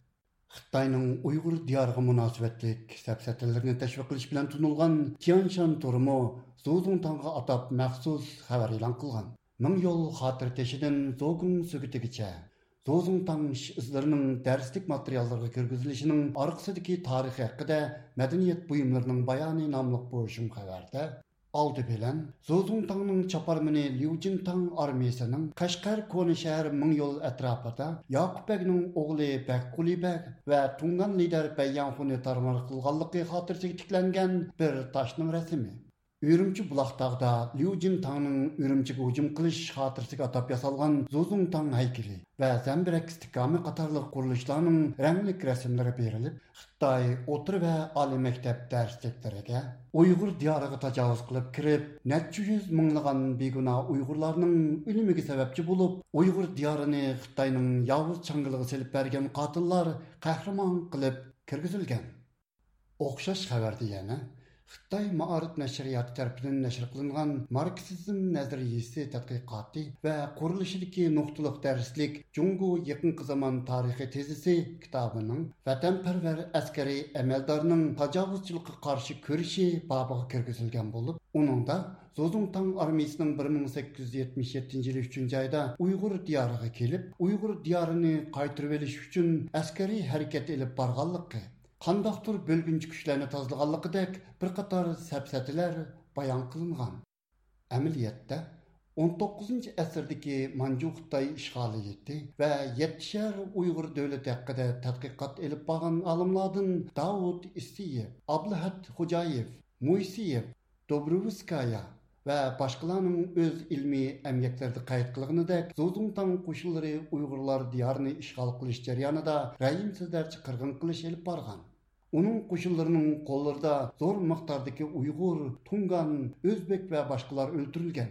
خىتاينىڭ ئۇيغۇر دىيارىغا مۇناسىۋەتلىك سەپسەتىلىرىنى تەشۋىق قىلىش بىلەن تونۇلغان تيەنشان تورىمۇ زوزۇڭتاڭغا ئاتاپ مەخسۇس خەۋەر ئېلان قىلغان. مىڭ يول خاتىرە تېشىدىن زوگۇڭ سۆگىتىگىچە زوزۇڭتاڭ ئىش ئىزلىرىنىڭ دەرسلىك ماتېرىياللىرىغا كىرگۈزۈلۈشىنىڭ ئارقىسىدىكى تارىخى ھەققىدە مەدەنىيەت بۇيۇملىرىنىڭ بايانى ناملىق بۇ شۇم خەۋەردە، ئالدى بىلەن زوزۇڭتاڭنىڭ چاپارمىنى ليۇجىنتاڭ ئارمىيىسىنىڭ قەشقەر كونا شەھەر مىڭ يول ئەتراپىدا ياقۇپ بەگنىڭ ئوغلى بەگقۇلى بەگ ۋە تۇڭگان لىدەر بەيياڭخۇنى تارمار قىلغانلىقى خاتىرىسىگە تىكلەنگەن بىر تاشنىڭ رەسىمى. ئۈرۈمچى بۇلاقتاغدا ليۇ جىنتاڭنىڭ ئۈرۈمچىگە ھۇجۇم قىلىش خاتىرىسىگە ئاتاپ ياسالغان زۇزۇڭتاڭ ھەيكىلى ۋە زەمبىرەك ئىستىھكامى قاتارلىق قۇرۇلۇشلارنىڭ رەڭلىك رەسىملىرى بېرىلىپ، خىتاي ئوتتۇرا ۋە ئالىي مەكتەپ دەرسلىكلىرىگە، ئۇيغۇر دىيارىغا تاجاۋۇز قىلىپ كىرىپ، نەچچە يۈز مىڭلىغان بىگۇناھ ئۇيغۇرلارنىڭ ئۆلۈمىگە سەۋەبچى بولۇپ، ئۇيغۇر دىيارىنى خىتاينىڭ ياۋۇز چاڭگىلىغا سېلىپ بەرگەن قاتىللار قەھرىمان قىلىپ كىرگۈزۈلگەن. ئوخشاش خەۋەردە يەنە خىتاي مائارىپ نەشرىياتى تەرىپىدىن نەشر قىلىنغان ماركسىزم نەزەرىيىسى تەتقىقاتى ۋە قۇرۇلۇشىدىكى نۇقتىلىق دەرسلىك جۇڭگو يېقىنقى زامان تارىخى تېزىسى كىتابىنىڭ ۋەتەنپەرۋەر ئەسكەرىي ئەمەلدارنىڭ تاجاۋۇزچىلىققا قارشى كۈرىشى بابىغا كىرگۈزۈلگەن بولۇپ، ئۇنىڭدا زۇزۇڭتاڭ ئارمىيىسىنىڭ بىر مىڭ سەككىز يۈز يەتمىش يەتتىنچى يىلى ئۈچىنچى ئايدا ئۇيغۇر دىيارىغا كېلىپ، ئۇيغۇر دىيارىنى قايتۇرۇۋېلىش ئۈچۈن ئەسكەرىي ھەرىكەت ئېلىپ بارغانلىقى، قانداقتۇر بۆلگۈنچى كۈچلەرنى تازىلىغانلىقىدەك بىر قاتار سەپسەتىلەر بايان قىلىنغان. ئەمەلىيەتتە، ئون توققۇزىنچى ئەسىردىكى مانجۇ خىتاي ئىشغالىيىتى ۋە يەتتە شەھەر ئۇيغۇر دۆلىتى ھەققىدە تەتقىقات ئېلىپ بارغان ئالىملاردىن داۋۇت ئىسسىيېۋ، ئابلىھەت خوجايېۋ، مويسېيېۋ، دوبروۋسكايا ۋە باشقىلارنىڭ ئۆز ئىلمىي ئەمگەكلىرىدە قەيت قىلغىنىدەك، زۇزۇڭتاڭ قوشۇنلىرى ئۇيغۇرلار دىيارىنى ئىشغال قىلىش جەريانىدا رەھىمسىزلەرچە قىرغىن قىلىش ئېلىپ بارغان. ئۇنىڭ قوشۇنلىرىنىڭ قوللىرىدا زور مىقداردىكى ئۇيغۇر، تۇڭگان، ئۆزبېك ۋە باشقىلار ئۆلتۈرۈلگەن.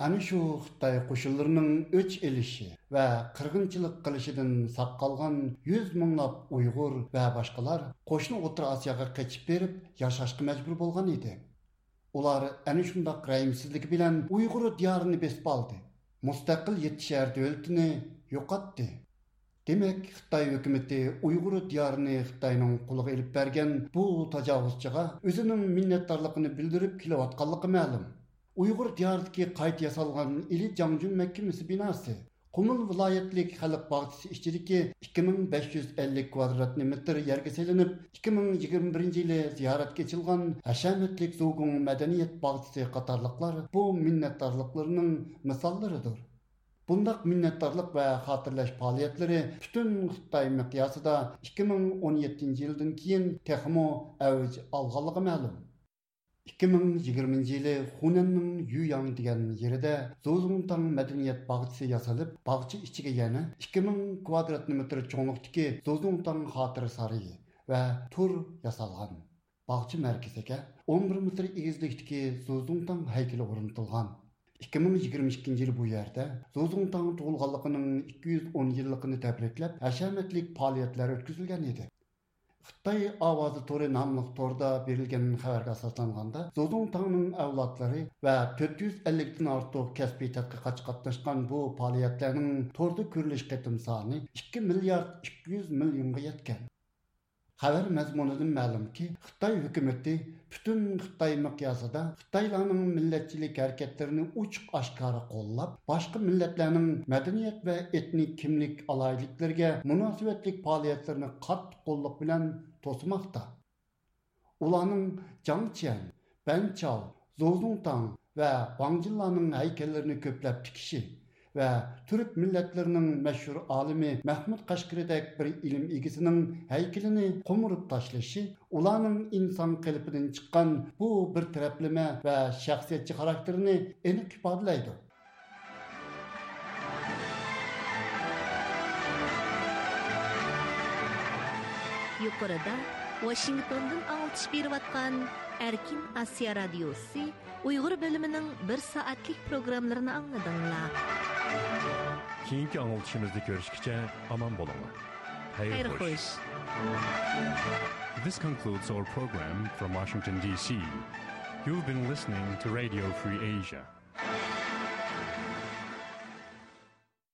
ئەنە شۇ خىتاي قوشۇنلىرىنىڭ ئۆچ ئېلىشى ۋە قىرغىنچىلىق قىلىشىدىن ساق قالغان يۈز مىڭلاپ ئۇيغۇر ۋە باشقىلار قوشنا ئوتتۇرا ئاسىياغا قېچىپ بېرىپ ياشاشقا مەجبۇر بولغان ئىدى. ئۇلار ئەنە شۇنداق رەھىمسىزلىكى بىلەن ئۇيغۇر دىيارىنى بېسىپ ئالدى. مۇستەقىل يەتتە شەھەر دۆلىتىنى يوقاتتى. دېمەك، خىتاي ھۆكۈمىتى ئۇيغۇر دىيارىنى خىتاينىڭ قولىغا ئېلىپ بەرگەن بۇ تاجاۋۇزچىغا ئۆزىنىڭ مىننەتدارلىقىنى بىلدۈرۈپ كېلىۋاتقانلىقى مەلۇم. ئۇيغۇر دىيارىدىكى قايتا ياسالغان ئىلى جاڭجۈن مەھكىمىسى بىناسى، قۇمۇل ۋىلايەتلىك خەلق باغچىسى ئىچىدىكى ئىككى مىڭ بەش يۈز ئەللىك كۋادراتنى مېتىر يەرگە سېلىنىپ، ئىككى مىڭ يىگىرمە بىرىنچى يىلى زىيارەتكە ئېچىلغان ھەشەمەتلىك زۇگۇڭ مەدەنىيەت باغچىسى قاتارلىقلار بۇ مىننەتدارلىقلىرىنىڭ مىساللىرىدۇر. بۇنداق مىننەتدارلىق ۋە خاتىرىلەش پائالىيەتلىرى پۈتۈن خىتاي مىقياسىدا ئىككى مىڭ ئون يەتتىنچى يىلدىن كېيىن تېخىمۇ ئەۋج ئالغانلىقى مەلۇم. ئىككى مىڭ يىگىرمىنچى يىلى خۇنەننىڭ يۈياڭ دېگەن يېرىدە زۇزۇڭتاڭ مەدەنىيەت باغچىسى ياسىلىپ، باغچە ئىچىگە يەنە ئىككى مىڭ كۋادرات مېتىر چوڭلۇقتىكى زۇزۇڭتاڭ خاتىرە سارىيى ۋە تور ياسالغان. باغچە مەركىزىگە ئون بىر مېتىر ئېگىزلىكتىكى زۇزۇڭتاڭ ھەيكىلى ئورنىتىلغان. ئىككى مىڭ يىگىرمە ئىككىنچى يىلى بۇ يەردە زۇزۇڭتاڭ تۇغۇلغانلىقىنىڭ ئىككى يۈز ئون يىللىقىنى تەبرىكلەپ ھەشەمەتلىك پائالىيەتلەر ئۆتكۈزۈلگەن ئىدى. خىتاي ئاۋازى تورى ناملىق توردا بېرىلگەن خەۋەرگە ئاساسلانغاندا، زۇزۇڭتاڭنىڭ ئەۋلادلىرى ۋە تۆت يۈز ئەللىكتىن ئارتۇق كەسپىي تەتقىقاتچى قاتناشقان بۇ پائالىيەتلەرنىڭ توردا كۆرۈلۈش قېتىم سانى ئىككى مىليارد ئىككى يۈز مىليونغا يەتكەن. خەۋەر مەزمۇنىدىن مەلۇمكى، خىتاي ھۆكۈمىتى پۈتۈن خىتاي مىقياسىدا خىتايلارنىڭ مىللەتچىلىك ھەرىكەتلىرىنى ئوچۇق ئاشكارا قوللاپ، باشقا مىللەتلەرنىڭ مەدەنىيەت ۋە ئېتنىك كىملىك ئالاھىدىلىكلىرىگە مۇناسىۋەتلىك پائالىيەتلىرىنى قاتتىق قوللۇق بىلەن توسىماقتا. ئۇلارنىڭ جاڭ چيەن، بەن چاۋ، زوزۇڭتاڭ ۋە ۋاڭ جىنلارنىڭ ھەيكەللىرىنى كۆپلەپ تىكىشى ۋە تۈرك مىللەتلىرىنىڭ مەشھۇر ئالىمى مەھمۇد قەشقىرىدەك بىر ئىلىم ئىگىسىنىڭ ھەيكىلىنى قومۇرۇپ تاشلىشى ئۇلارنىڭ ئىنسان قېلىپىدىن چىققان بۇ بىر تەرەپلىمە ۋە شەخسىيەتچى خاراكتېرىنى ئېنىق ئىپادىلەيدۇ. يۇقىرىدا ۋاشىنگتوندىن ئاڭلىتىش بېرىۋاتقان ئەركىن ئاسىيا رادىيوسى ئۇيغۇر بۆلۈمىنىڭ بىر سائەتلىك پروگراممىلىرىنى ئاڭلىدىڭلار. كېيىنكى ئاڭلىتىشىمىزدا كۆرۈشكىچە ئامان بولۇڭلار. خەير خوش. This concludes our program from Washington, D C. You've been listening to Radio Free Asia.